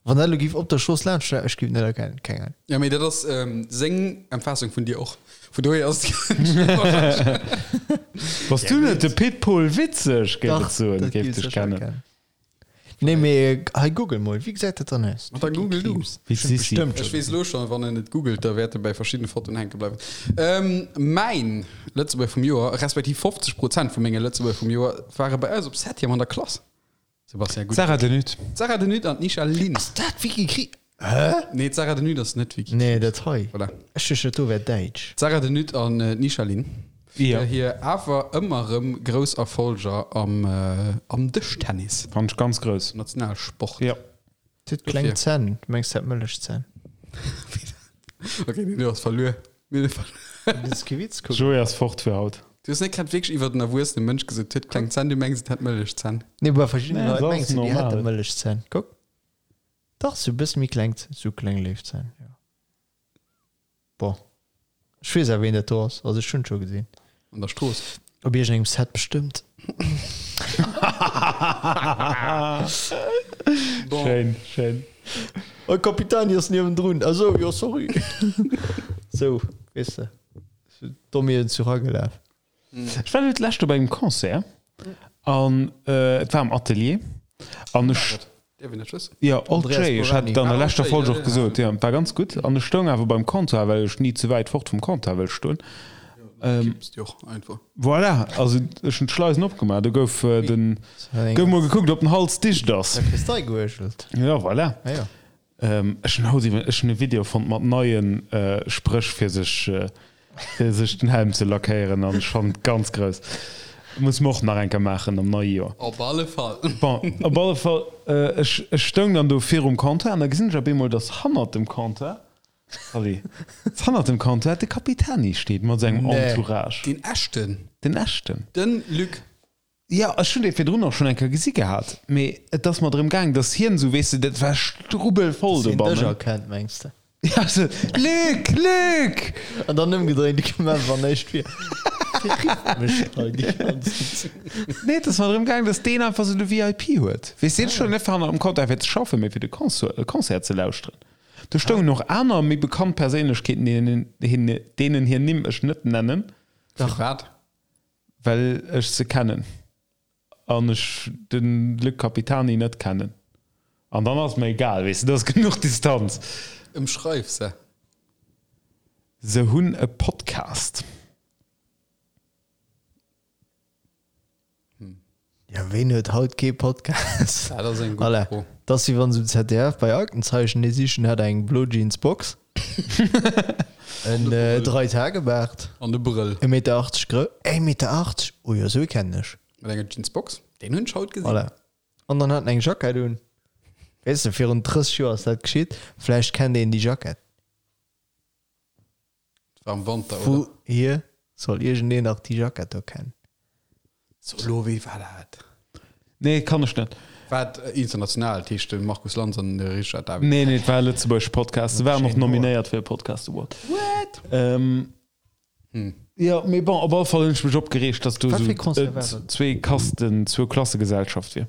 wann dat elo géif op der Strooss laanscht, ech géif et net erkennen. Keng Ahnung. Ja, mee dat ass ähm, seng Empfaassung vun dir och. Vun dohier ass Bass du net de Pit Pol Witzeg, géif Dach, et soen, dat géif géif dech ech kennen. erkennen. Nee, mee hei google mol, wéi gesäit dat dann aus? Ma da google du. Wéi d'Sissi. Bestëmmt Ech weess elo schonn, wann en et googelt, da wäert e bäi verschiddene Fotoen hänke bleiwen. Mäin Lëtzebuerger vum Joer, respektiv 50 Prozent vu menge Lëtzebuerger vum Joer ware bei eis op Septième an der Klass. Sebastian, gutt. D'Sarah De Nutte. D'Sarah De Nutte an d'Nisha Lin. Ass dat Vicky Kri. Hä? Nee, d'Sarah De Nutte ass net Vicky Nee, dat hei. Voilà. Ech duecht, dat do wär däitsch. D'Sarah De Nutte an d'Nisha Lin. Ja. Fir hir awer ëmmer erëm grouss Erfolger am, am Dëschtennis. Fand ech ganz grouss. Nationalsport. Ja. Huet kleng Zänn. Du mengs, dat Mëllechzänn. Okay, nee, du ass verluer. Mir hu verluer. Dat ass kee Witz, kuck. Joé ass fort fir haut. Du hues net grad wierklech iwwert en erwuessene Mënsch gesot, huet kleng Zänn, du mengs et hätt Mëllechzänn. Nee, bei verschiddene Nee, Leit dat mengs ass du, déi normal. hätte Mëllechzänn. Kuck. Dach, sou e bësse méi kleng, sou kleng Léifzänn, jo. Bon, ech weess awer, ween dat do ass. Also ech hunn et scho gesinn. An der Strooss. Op iergendengem Set bestëmmt. Bon. Schéin, schéin. Oh, Capitani ass niewendrun. Ah sou, jo, sorry. Sou, weess de. Domm ier den Zuch agelaf. Ech war elo d'lescht op engem Concert an et war am Atelier an ech. Dierf een dat wëssen? Jo, Old Andreas Jay, ech hat et Borani. an der Ah, Old leschter Jay, Folg ja, och ja. gesot, jo, et war ganz gutt an ech stoung awer beim Comptoir, well ech ni ze wäit fort vum Comptoir wëll stoen. Kipps déi och einfach. Voilà, also ech hunn d'Schleisen opgemaach, do gouf den, gouf mol gekuckt, ob den Hals dicht ass. Da kriss d'Ei geuergelt. Jo, voilà. Ah jo. Ech hunn haut iwwer, ech hunn e Video fonnt mat neie Spréch fir sech fir sech den Helm ze lackéieren an ech fannen et ganz grouss. Muss mer och nach eng Kéier maachen am neie Joer. Op alle Fall. Bon, op alle Fall, ech ech stoung dann do virum Comptoir an da gesinn ech op eemol, dass hannert dem Comptoir, sorry, dass hannert dem Comptoir de Capitani steet mat sengem Entourage. Deen echten. Den echten. Den Luc. Jo, ech hunn dee virdrun och schonn eng Kéier gesi gehat, mee et ass mer drëm gaang, datt hien esou, weess de, dat war strubbelvoll Dass hien dech dobannen. erkennt, mengs de? Ja, esou, Luc, Luc! An dann ëmgedréint, du koum awer näischt vir. Dee rifft mech hei déi ganzen Zäit. Nee, et ass mer drëm gaang, datt deen einfach esou de VIP huet. Weess de, hien stoung net hanner am Comptoir fir ze schaffen, mee fir de Concert ze lauschteren. Do stoungen och aner méi bekannt Perséinlechkeeten, deenen deenen hir Nimm ech net nennen. Firwat? Well ech se kennen an ech de Luc Capitani net kennen. An dann ass et mer egal, weess de, do ass genuch Distanz. Ëmschreif se. Se hunn e Podcast. Ja, ween huet haut kee Podcast? Dat ass eng gutt Voilà. Fro. Dat ass wéi wann se um ZDF bei Aktenzeichen ee sichen hat eng blo Jeans Box, en Dreitage-Baart, An de Brëll. e Meter 80 grou, e Meter 80? Oh jo, sou ee kennen ech. Mat enger Jeansbox. Deen hunn ech haut gesinn. Voilà. An dann hat en eng Jackett un. Weess de, virun 30 Joer ass dat geschitt, vläicht kennt een déi Jackett. War am Wanter, Vu oder? hier soll iergendeen nach déi Jackett do kennen. So, elo, wéi war dat? Nee, kann ech net. War et international, dat heescht de Markus Lanz an de Richard David? Nee, nee, et war e lëtzebuergesche Podcast. Se waren och nominéiert fir e Podcast Award. What? Ähm, Hm. Jo, mee bon, op alle Fall hunn ech mech opgereegt, dass do Wat esou fir e Concert war dat? zwee Kasten, zwou Klassegesellschaft wier.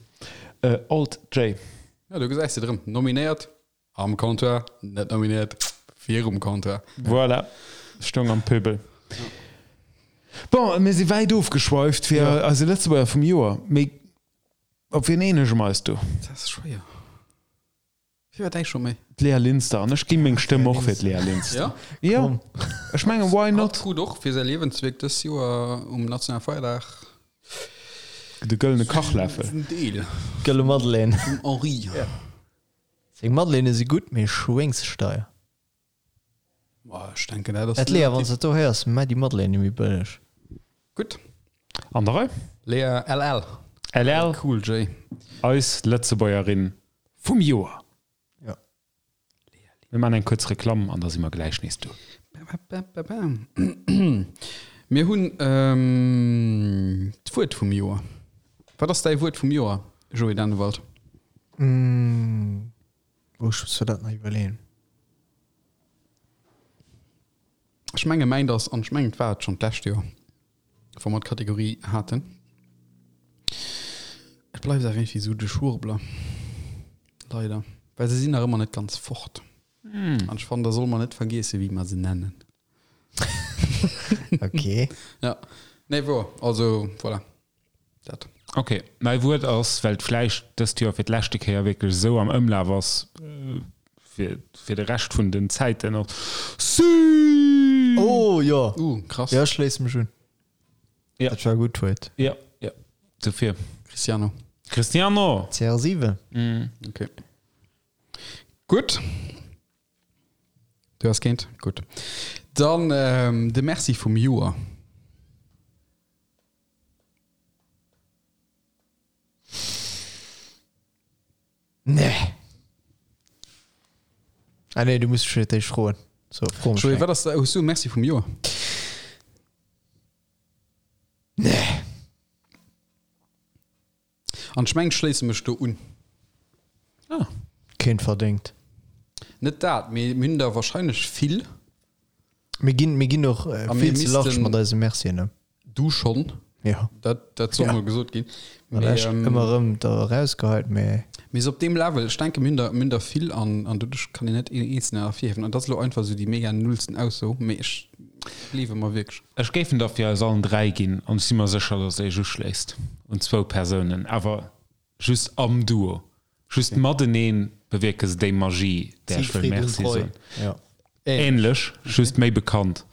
Äh, Alt J. Ja, do gesäis de et erëm. Nominéiert Am Comptoir, net nominéiert, virum Comptoir. Voilà, stoung am Pöbel. Bon, mir si wäit ofgeschweift fir ja. eise Lëtzebuerger vum Joer. Mee op wien eenege mer eis do? Dat ass schwéier. Wie war däi scho méi? D'Lea Linster. An ech gi meng Stëmm och fir d'Lea Linster. Ja? Ja. Ech mengen, why not? Hatt krut och fir säi Liewenswierk dës Joer um nationale Feierdag De gëllene Kachläffel. en Deel Gëlle Madeleine. vum Henri. Seng Madeleine si gutt, mee schwéngssteier. Boah, ech denken, dat ass Et Lea, wann s de dat do héiers, mä déi Madeleine méi bëlleg. Gutt. An der Rei? Lea LL. LL. Cool J. Eis Lëtzebuergerin vum Joer. Ja. Mir maachen eng kuerz Reklamm an da si mer gläich nees do. Mir hunn d'Wuert vum Joer. Wat ass däi Wuert vum Joer, Joé Dannewald? Oh, ech muss mir dat nach iwwerleeën. Ech menge mäint ass, an ech mengen et war et schonn d'lescht Joer, wou mer d'Kategorie haten, et bleift awer iergendwéi esou de Schwurbler, leider, well se sinn nach ëmmer net ganz fort. An ech fannen, da solle mer net vergiesse wéi mer se nennen. Okay. Ja, nee, wor, also voilà, dat. Ok, mäi Wuert ass, well et vläicht dëst Joer fir d'leschte Kéier wierklech esou am Ëmlaf ass, fir, fir de Rescht vun den Zäiten och, Süü! Oh jo! Uh, krass. Jo, ech schléisse mech un. Ja. Dat war gutt Wuert. Ja, ja. Dofir. Cristiano. Cristiano! CR7. Ok. Gutt. Du has keent? Gutt. Dann de Merci vum Joer. Nee. Ah nee, du muss fir d'éischt froen. So, fro mech Joé, eng. wat ass, hues du e Merci vum Joer? Nee. An ech mengen, ech schléisse mech do un. Ah. Keent verdéngt. Net dat, mee mir hunn der wahrscheinlech vill. Mir ginn, mir ginn och A mir vill ze large missten- mat eise Mercien ëm. Du schonn. Ja. Dat, dat soll Ja. mol gesot ginn. Mee, Mee, echt ähm, ëmmer erëm da erausgeheit, mee. mee sou op deem Level, ech denke mir hunn der, mir hunn der vill an, an doduerch kann een net een eenzelnen ervirhiewen. An dat ass elo einfach sou déi mega nullsten Ausso, mee ech gleewe mer wierklech. Ech géif en der fir eis allen 3 ginn an ech si mer sécher, dass Iech uschléisst un zwou Persounen, awer just am Duo, just mateneen bewierke se déi Magie, där ech wëll Siegfried und Merci Roy. soen. Ja. Ähnlech, just méi bekannt.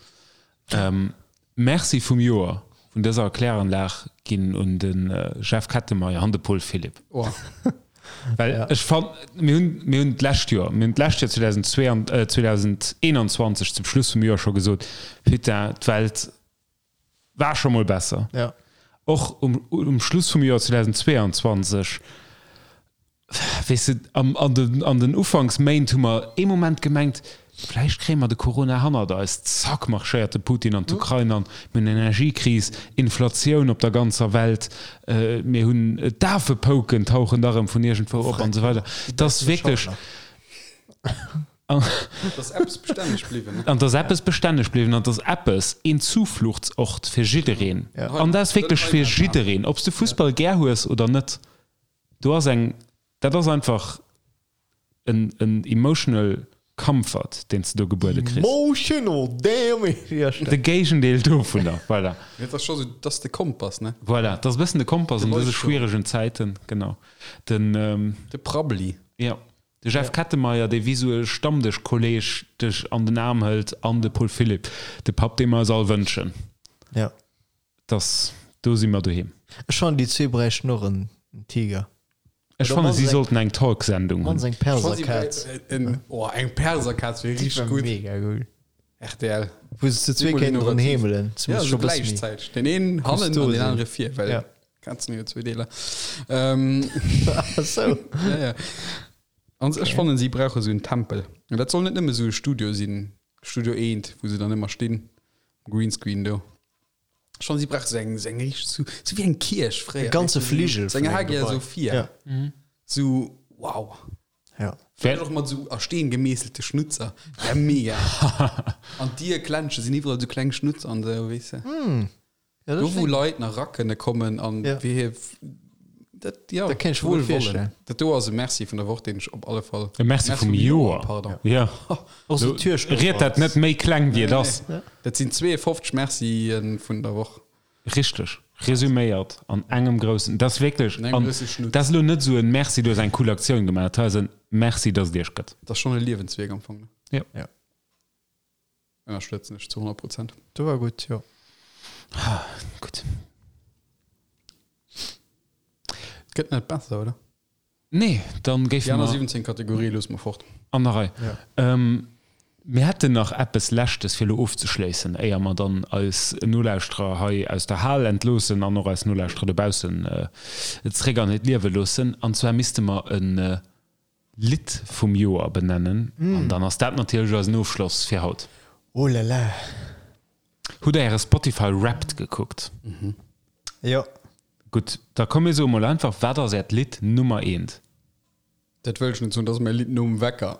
Merci vum Joer vun dëser Kläranlag ginn un de Jeff Kettenmeyer an de Paul Philipp. Oh. Well ech fann, mir hunn, mir hunn d'lescht Joer, mir hunn d'lescht Joer 2022, 2021 zum Schluss vum Joer scho gesot, Putain, d'Welt war scho mol besser. Ja. Och um, um Schluss vum Joer 2022, weess de, am, an den, an den Ufanksméint hu mer ee Moment gemengt, vläicht kréie mer de Corona hannert eis. Zack, marschéiert de Putin an d'Ukrain an, mir hunn Energiekris, Inflatioun op der ganzer Welt, mir hunn d'Afepouken tauchen da rëm vun iergendwou op an esou weider. Et ass wierklech. An dass eppes bestänneg bliwwen, ne? An dass eppes bestänneg bliwwen an dass eppes een Zufluchtsort fir jiddereen, an dat ass wierklech fir jiddereen, ob s de Fussball gär hues oder net, do ass eng, dat ass einfach en, en emotional comfort, deen s de do gebuede kriss. Emotional damage! Ja, De Géigendeel dovunner, voilà. Dat ass scho sou, dat ass de Kompass, ne? Voilà, dat ass e bëssen de Kompass an dëse schwieregen Zäiten, genau. Den. De Prabbeli. Jo. De Jeff Kettenmeyer, dee wéi sou e Stammdëschkolleg dech an den Aarm hëlt, an de Paul Philipp, de Papp, dee mer eis all wënschen. Ja. Dass, do si mer doheem. Ech fannen, déi zwee bräichten och en Tiger. Ech fannen, si sollten eng Talksendung hunn. Mannst eng Perserkaz. Oh, eng Perserkaz wier richteg gutt. Mega gutt. RTL. Wou se zu zwee kéinten dran heemelen. Ja, sou gläichzäiteg. Den een hannen an den anere vir, well Ja. Kazen hu jo zwee Deeler. Ähm, Ach sou. ja, ja. An ech fannen, si brauche sou en Tempel. An dat soll net nëmme sou e Studio sinn, Studio eent, wou se dann ëmmer stinn, Greenscreen do. Ech fannen, si brauche sou eng, sou eng richteg, sou, sou wéi eng Kierch fréier. E ganze weess du, sou- Fligel Sou eng vun engem Hagia Gebai. Sophia. Ja. Sou, wow. Ja. Vläicht och mat esou a Steen gemeesselte Schnutzer. Wär mega. An d'Dierklensche sinn iwwerall esou kleng Schnutzer an esou, weess de. Ja, Do wou Leit nach era kënne kommen an Ja. wéi hir dat, ja, Dat kéint ech mer gutt virstellen. Dat do ass e Merci vun der Woch, deen ech op alle Fall. E Merci vum Joer. Pardon. Ja. Och sou Türstopper. Ried dat net méi kleng wéi et ass. Dat sinn 52 Mercië vun der Woch. Richteg. Resuméiert an engem groussen, dat ass wierklech, An engem an grousse Schnutz. dat ass elo net esou en Merci, du hues eng cool Aktioun gemaach, dat ass en Merci, dass et iech gëtt. Dat ass schonn e Liewenswierk am Fong, ne? Jo. Ja. Ënnerstëtzen ech zu 100 Prozent. Do war gutt, jo. Gutt. Et gëtt net besser, oder? Nee, dann géife Déi aner mer 17 Kategorië loosse mer fort. an der Rei. Ja. Ähm, mir hätten nach eppes Leschtes fir elo ofzeschléissen, éier mer dann eis Nolauschterer hei aus der Hal entloossen an och eis Nolauschterer dobaussen zréck an hiert Liewe loossen. An zwar misste mer e Lidd vum Joer benennen. An dann ass dat natierlech eisen Ofschloss fir haut. Oh là là. Hutt der äre Spotify Wrapped gekuckt? Jo. Gutt, da komm mir soe mol einfach, wat ass äert Lidd Nummer eent? Dat wëll ech net soen, dat ass mäi Lidd nom Wecker.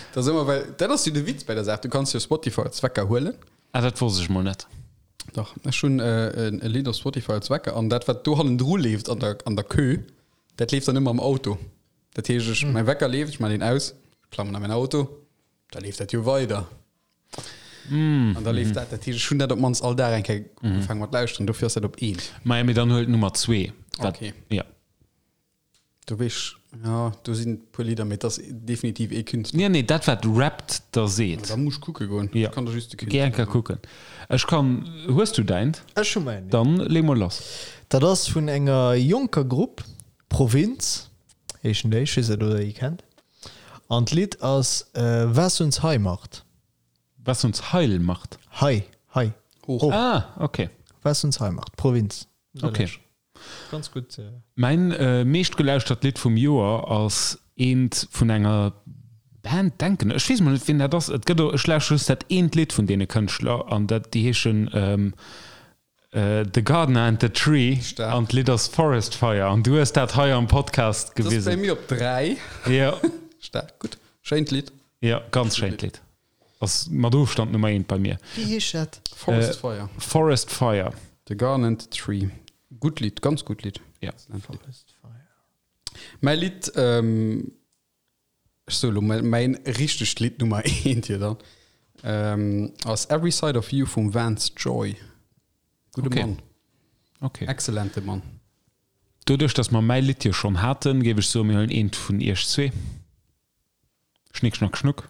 Dat ass ëmmer, well dat ass jo de Witz bei der Saach, du kanns jo Spotify als Wecker huelen. Ah, dat wosst ech mol net. Dach, ech hunn e Lidd op Spotify als Wecker an dat wat do hannendru leeft an der, an der Queue, dat leeft dann ëmmer am Auto. Dat heescht, ech, mäi Wecker leeft, ech maachen deen aus, klammen a mäin Auto, da leeft dat jo weider. An da leeft dat. Dat heescht, ech hunn dat op d'mannst all Dag eng Kéier ugefaangen mat lauschteren. Dofir ass dat op eent. Maja, mee dann huel d'Nummer zwee. Dat, Okay. ja. Do weess ech, ja, do sinn e puer Lidder, mee et ass definitiv ee Künstler. Nee, nee, dat wat Wrapped der seet. Da muss ech kucke goen. Ja. Ech kann der just de Géi Künstler eng Kéier soen. kucken. Ech kann, hues du däint? Ech hu mäin, ja. Dann lee mol lass. Dat ass vun enger jonker Grupp, Provinz heeschen déi, ech weess net, ob der déi kennt. An d'Lidd ass Was uns high macht. Was uns heil macht? High, high, Hoch. Ah, okay. Was uns high macht, Provinz. Okay. Ganz gutt. Mäin meeschtgelauschtert Lidd vum Joer ass eent vun enger Band, denken ech. Ech weess mol net wien dat ass. Et gëtt och, ech lauschteren just dat eent Lidd vun deene Kënschtler an dat, déi heeschen The Gardener and the Tree Staark. an d'Lidd ass Forest Fire an du hues dat hei am Podcast Dat ass bei gewisen. mir op 3. Jo. Staark, gutt. Schéint Lidd. Jo, ganz schéint Lidd. Ass mat Ofstand Nummer eent bei mir. Wéi heescht dat? Forest Fire. Forest Fire. The Garden and the Tree. Gutt Lidd, ganz gutt Lidd. Ja. Excellent Lidd. Forest Fire. Mäi Lidd, ähm, ech soe lo mol mäin richtegt Lidd Nummer eent hier dann, ähm, ass Every Side of You vum Vance Joy. Gudde Okay. Mann. Okay. Excellente Mann. Doduerch, dass mer mäi Lidd jo schonn haten, géif ech soen, mir huelen eent vun iech zwee. Schnick, schnack, schnuck.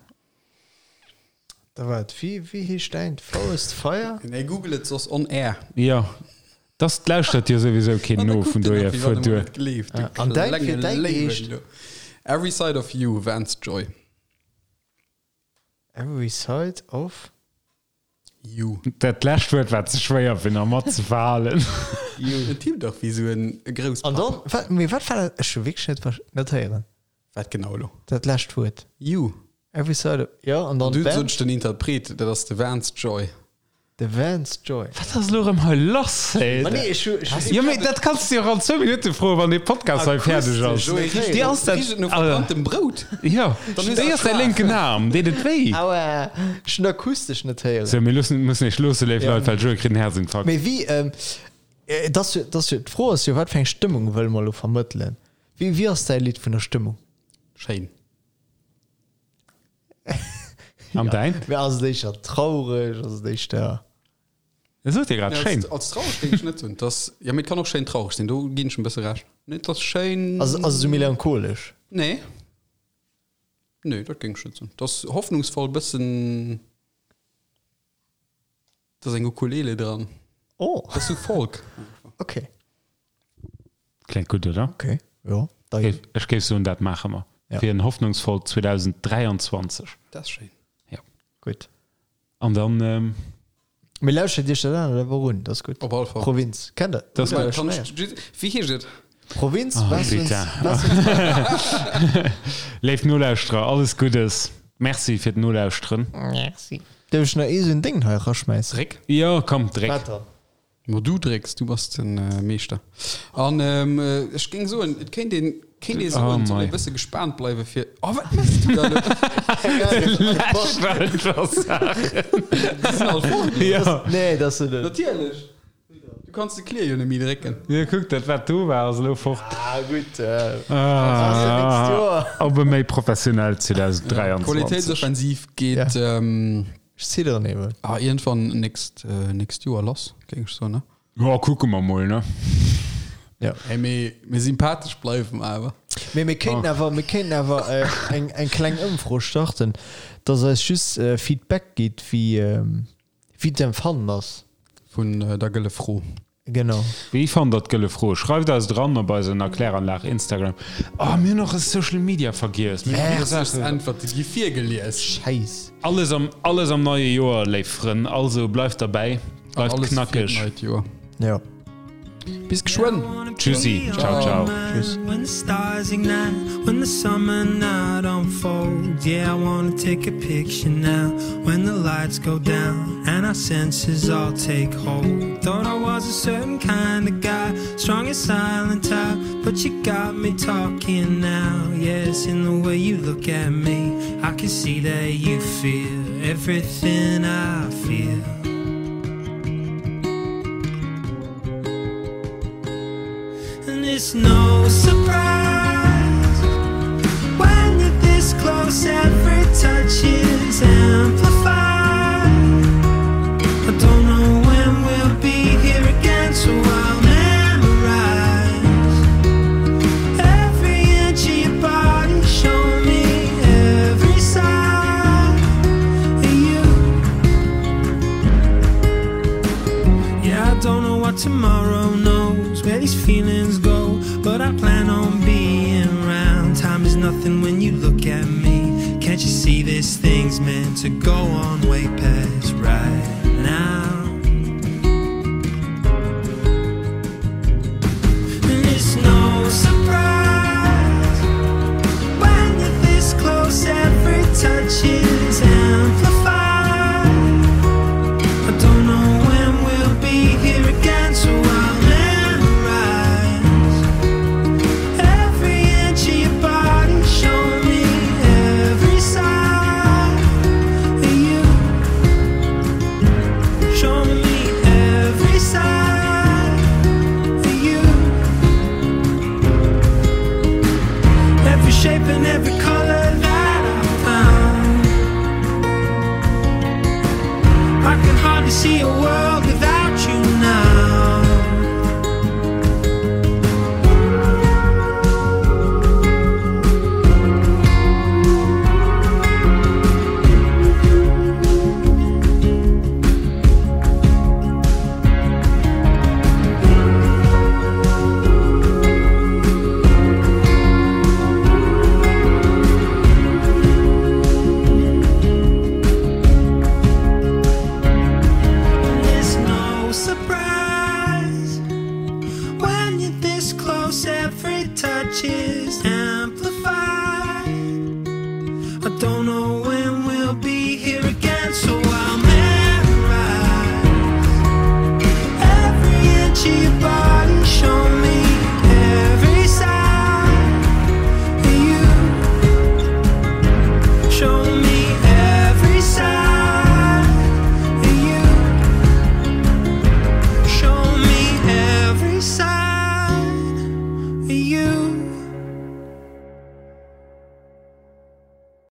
Da waart, wéi, wéi heescht däint? Forest Fire? Nee, google et soss on air. Jo, dass lauschtert jo souwisou keen no, vun dohier fuer duer. An däin, fir däin geheescht? Every Side of You, Vance Joy. Every Side of? You. Dat lescht Wuert war ze schwéier fir nach mat ze verhalen. You. En Typ dach wéi sou en Grousspapp. An dann, wat, mee wat war dat? Ech hu wierklech net ver, net héieren. Wat genau elo? Dat lescht Wuert. You. Every side of, jo, an dann Du d'Band? sot ech den Interpret, dat ass de Vance Joy. De Vance Joy. Wat ass elo erëm hei lass, hey? Ma nee, ech hu, ech hu. Jo, mee dat kanns du jo och an zwou Minutte froen, wann dee Podcast hei fäerdeg ass. Joé, richt Déi ass dat, richt et no also, verbranntem Brout. jo, Dann hues déi du ass däi lénken Aarm, deet et wéi? Aua, ech hunn akustesch net héieren. Sou, mir loossen, mussen iech loosse, léif Ja. Leit, well Joé kritt en Herzinfarkt. Mee wéi, ähm, et ass jo, et ass jo, d'Fro ass jo, wat fir eng Stëmmung wëlle mer elo vermëttelen? Wéi, wéi ass däi Lidd vun der Stëmmung? Schéin. An däin? Mee ass et éischter traureg, ass et éischter. Ech sot dir grad, Nee, schéin. als, als traureg géing ech net soen. Dass, ja, mee et kann och schéin traureg sinn, do ginn ech en bësse Recht. Nee, et ass schéin. Ass, ass et esou melancholesch? Nee. Nee, dat géing ech net soen. Et ass hoffnungsvoll, bëssen. Et ass eng Ukulele dran. Oh. Et ass sou Folk. Okay. Kléngt gutt, oder? Okay, jo. Da Géif, ech géif soen, dat maache mer. Ja. Fir en hoffnungsvollt 2023. Dat ass schéin. Ja. Gutt. An dann. Ähm, Mee lauschtert Iech dat anert awer un, dat ass gutt. Op alle Fall. Provinz, kennt der? Das Hutt der Kann schonn ech, héieren? wéi heescht et? Provinz, Oh, was uns, bitte. was uns. Léif Nolauschterer, alles Guddes. Merci fir d'Nolauschteren. Merci. Dierf ech nach ee sou en Déng hei eraschmäissen? Dréck. Jo, komm, dréck. Wat dann? Ma du drécks, du bass de Meeschter. An ech géing soen, et kéint een, kéint ee soen, et soll ee bësse gespaant bleiwe fir. Oh, wat méchs du da elo? Lech well scho Saachen. Déi sinn all fort elo. Jo. Nee, dat ass se net. Natierlech. Du kanns de Klier jo net méi drécken. Jo, kuck, dat wat do war, ass elo fort. Ah, gutt. Ah, nächst Joer. Op e méi professionellt 2023. Qualitéitsoffensiv geet. Ech zidderen eben. Ah, iergendwann nächst, nächst Joer lass, géing ech soen, ne? Jo, kucke mer mol, ne? Ja. Hey, mee, mee sympathesch bleiwe mer awer. Mee mir kéinten awer, mir kéinten awer eng, eng kleng Ëmfro starten, dass eis just Feedback gitt, wéi, wéi d'Empfannen ass. Vun der gëlle Fro. Genau. Wéi fannt der d'Gëlle Fro? Schreift eis et eran op eisen Erkläranlag Instagram. Oh, mir hunn och e Social Media vergiess. Mir hunn Häerzlechst Äntwerte gi virgelies. Schäiss. Alles am, alles am neie Joer, léif Frënn. Also bleift derbäi, bleift Alles fir knackeg. d'neit Joer. Jo. Bis geschwënn. Tschüssi, ciao, ciao. Tschüss. When the stars ignite, when the summer night unfolds, yeah, I wanna take a picture now. When the lights go down and our senses all take hold. Thought I was a certain kind of guy, strong and silent type, but you got me talking now. Yes, in the way you look at me, I can see that you feel everything I feel. And it's no surprise when you're this close, every touch is amplified. nothing when you look at me. Can't you see this thing's meant to go on way past right now? And it's no surprise when you're this close, every touch is amplified. I don't know when we'll be here again, so I'll memorize every inch of your body. Show me every side of you. Show me every side of you. Every shape and every color that I found. I can hardly see a world without you now. It's no surprise when you're this close, every touch is.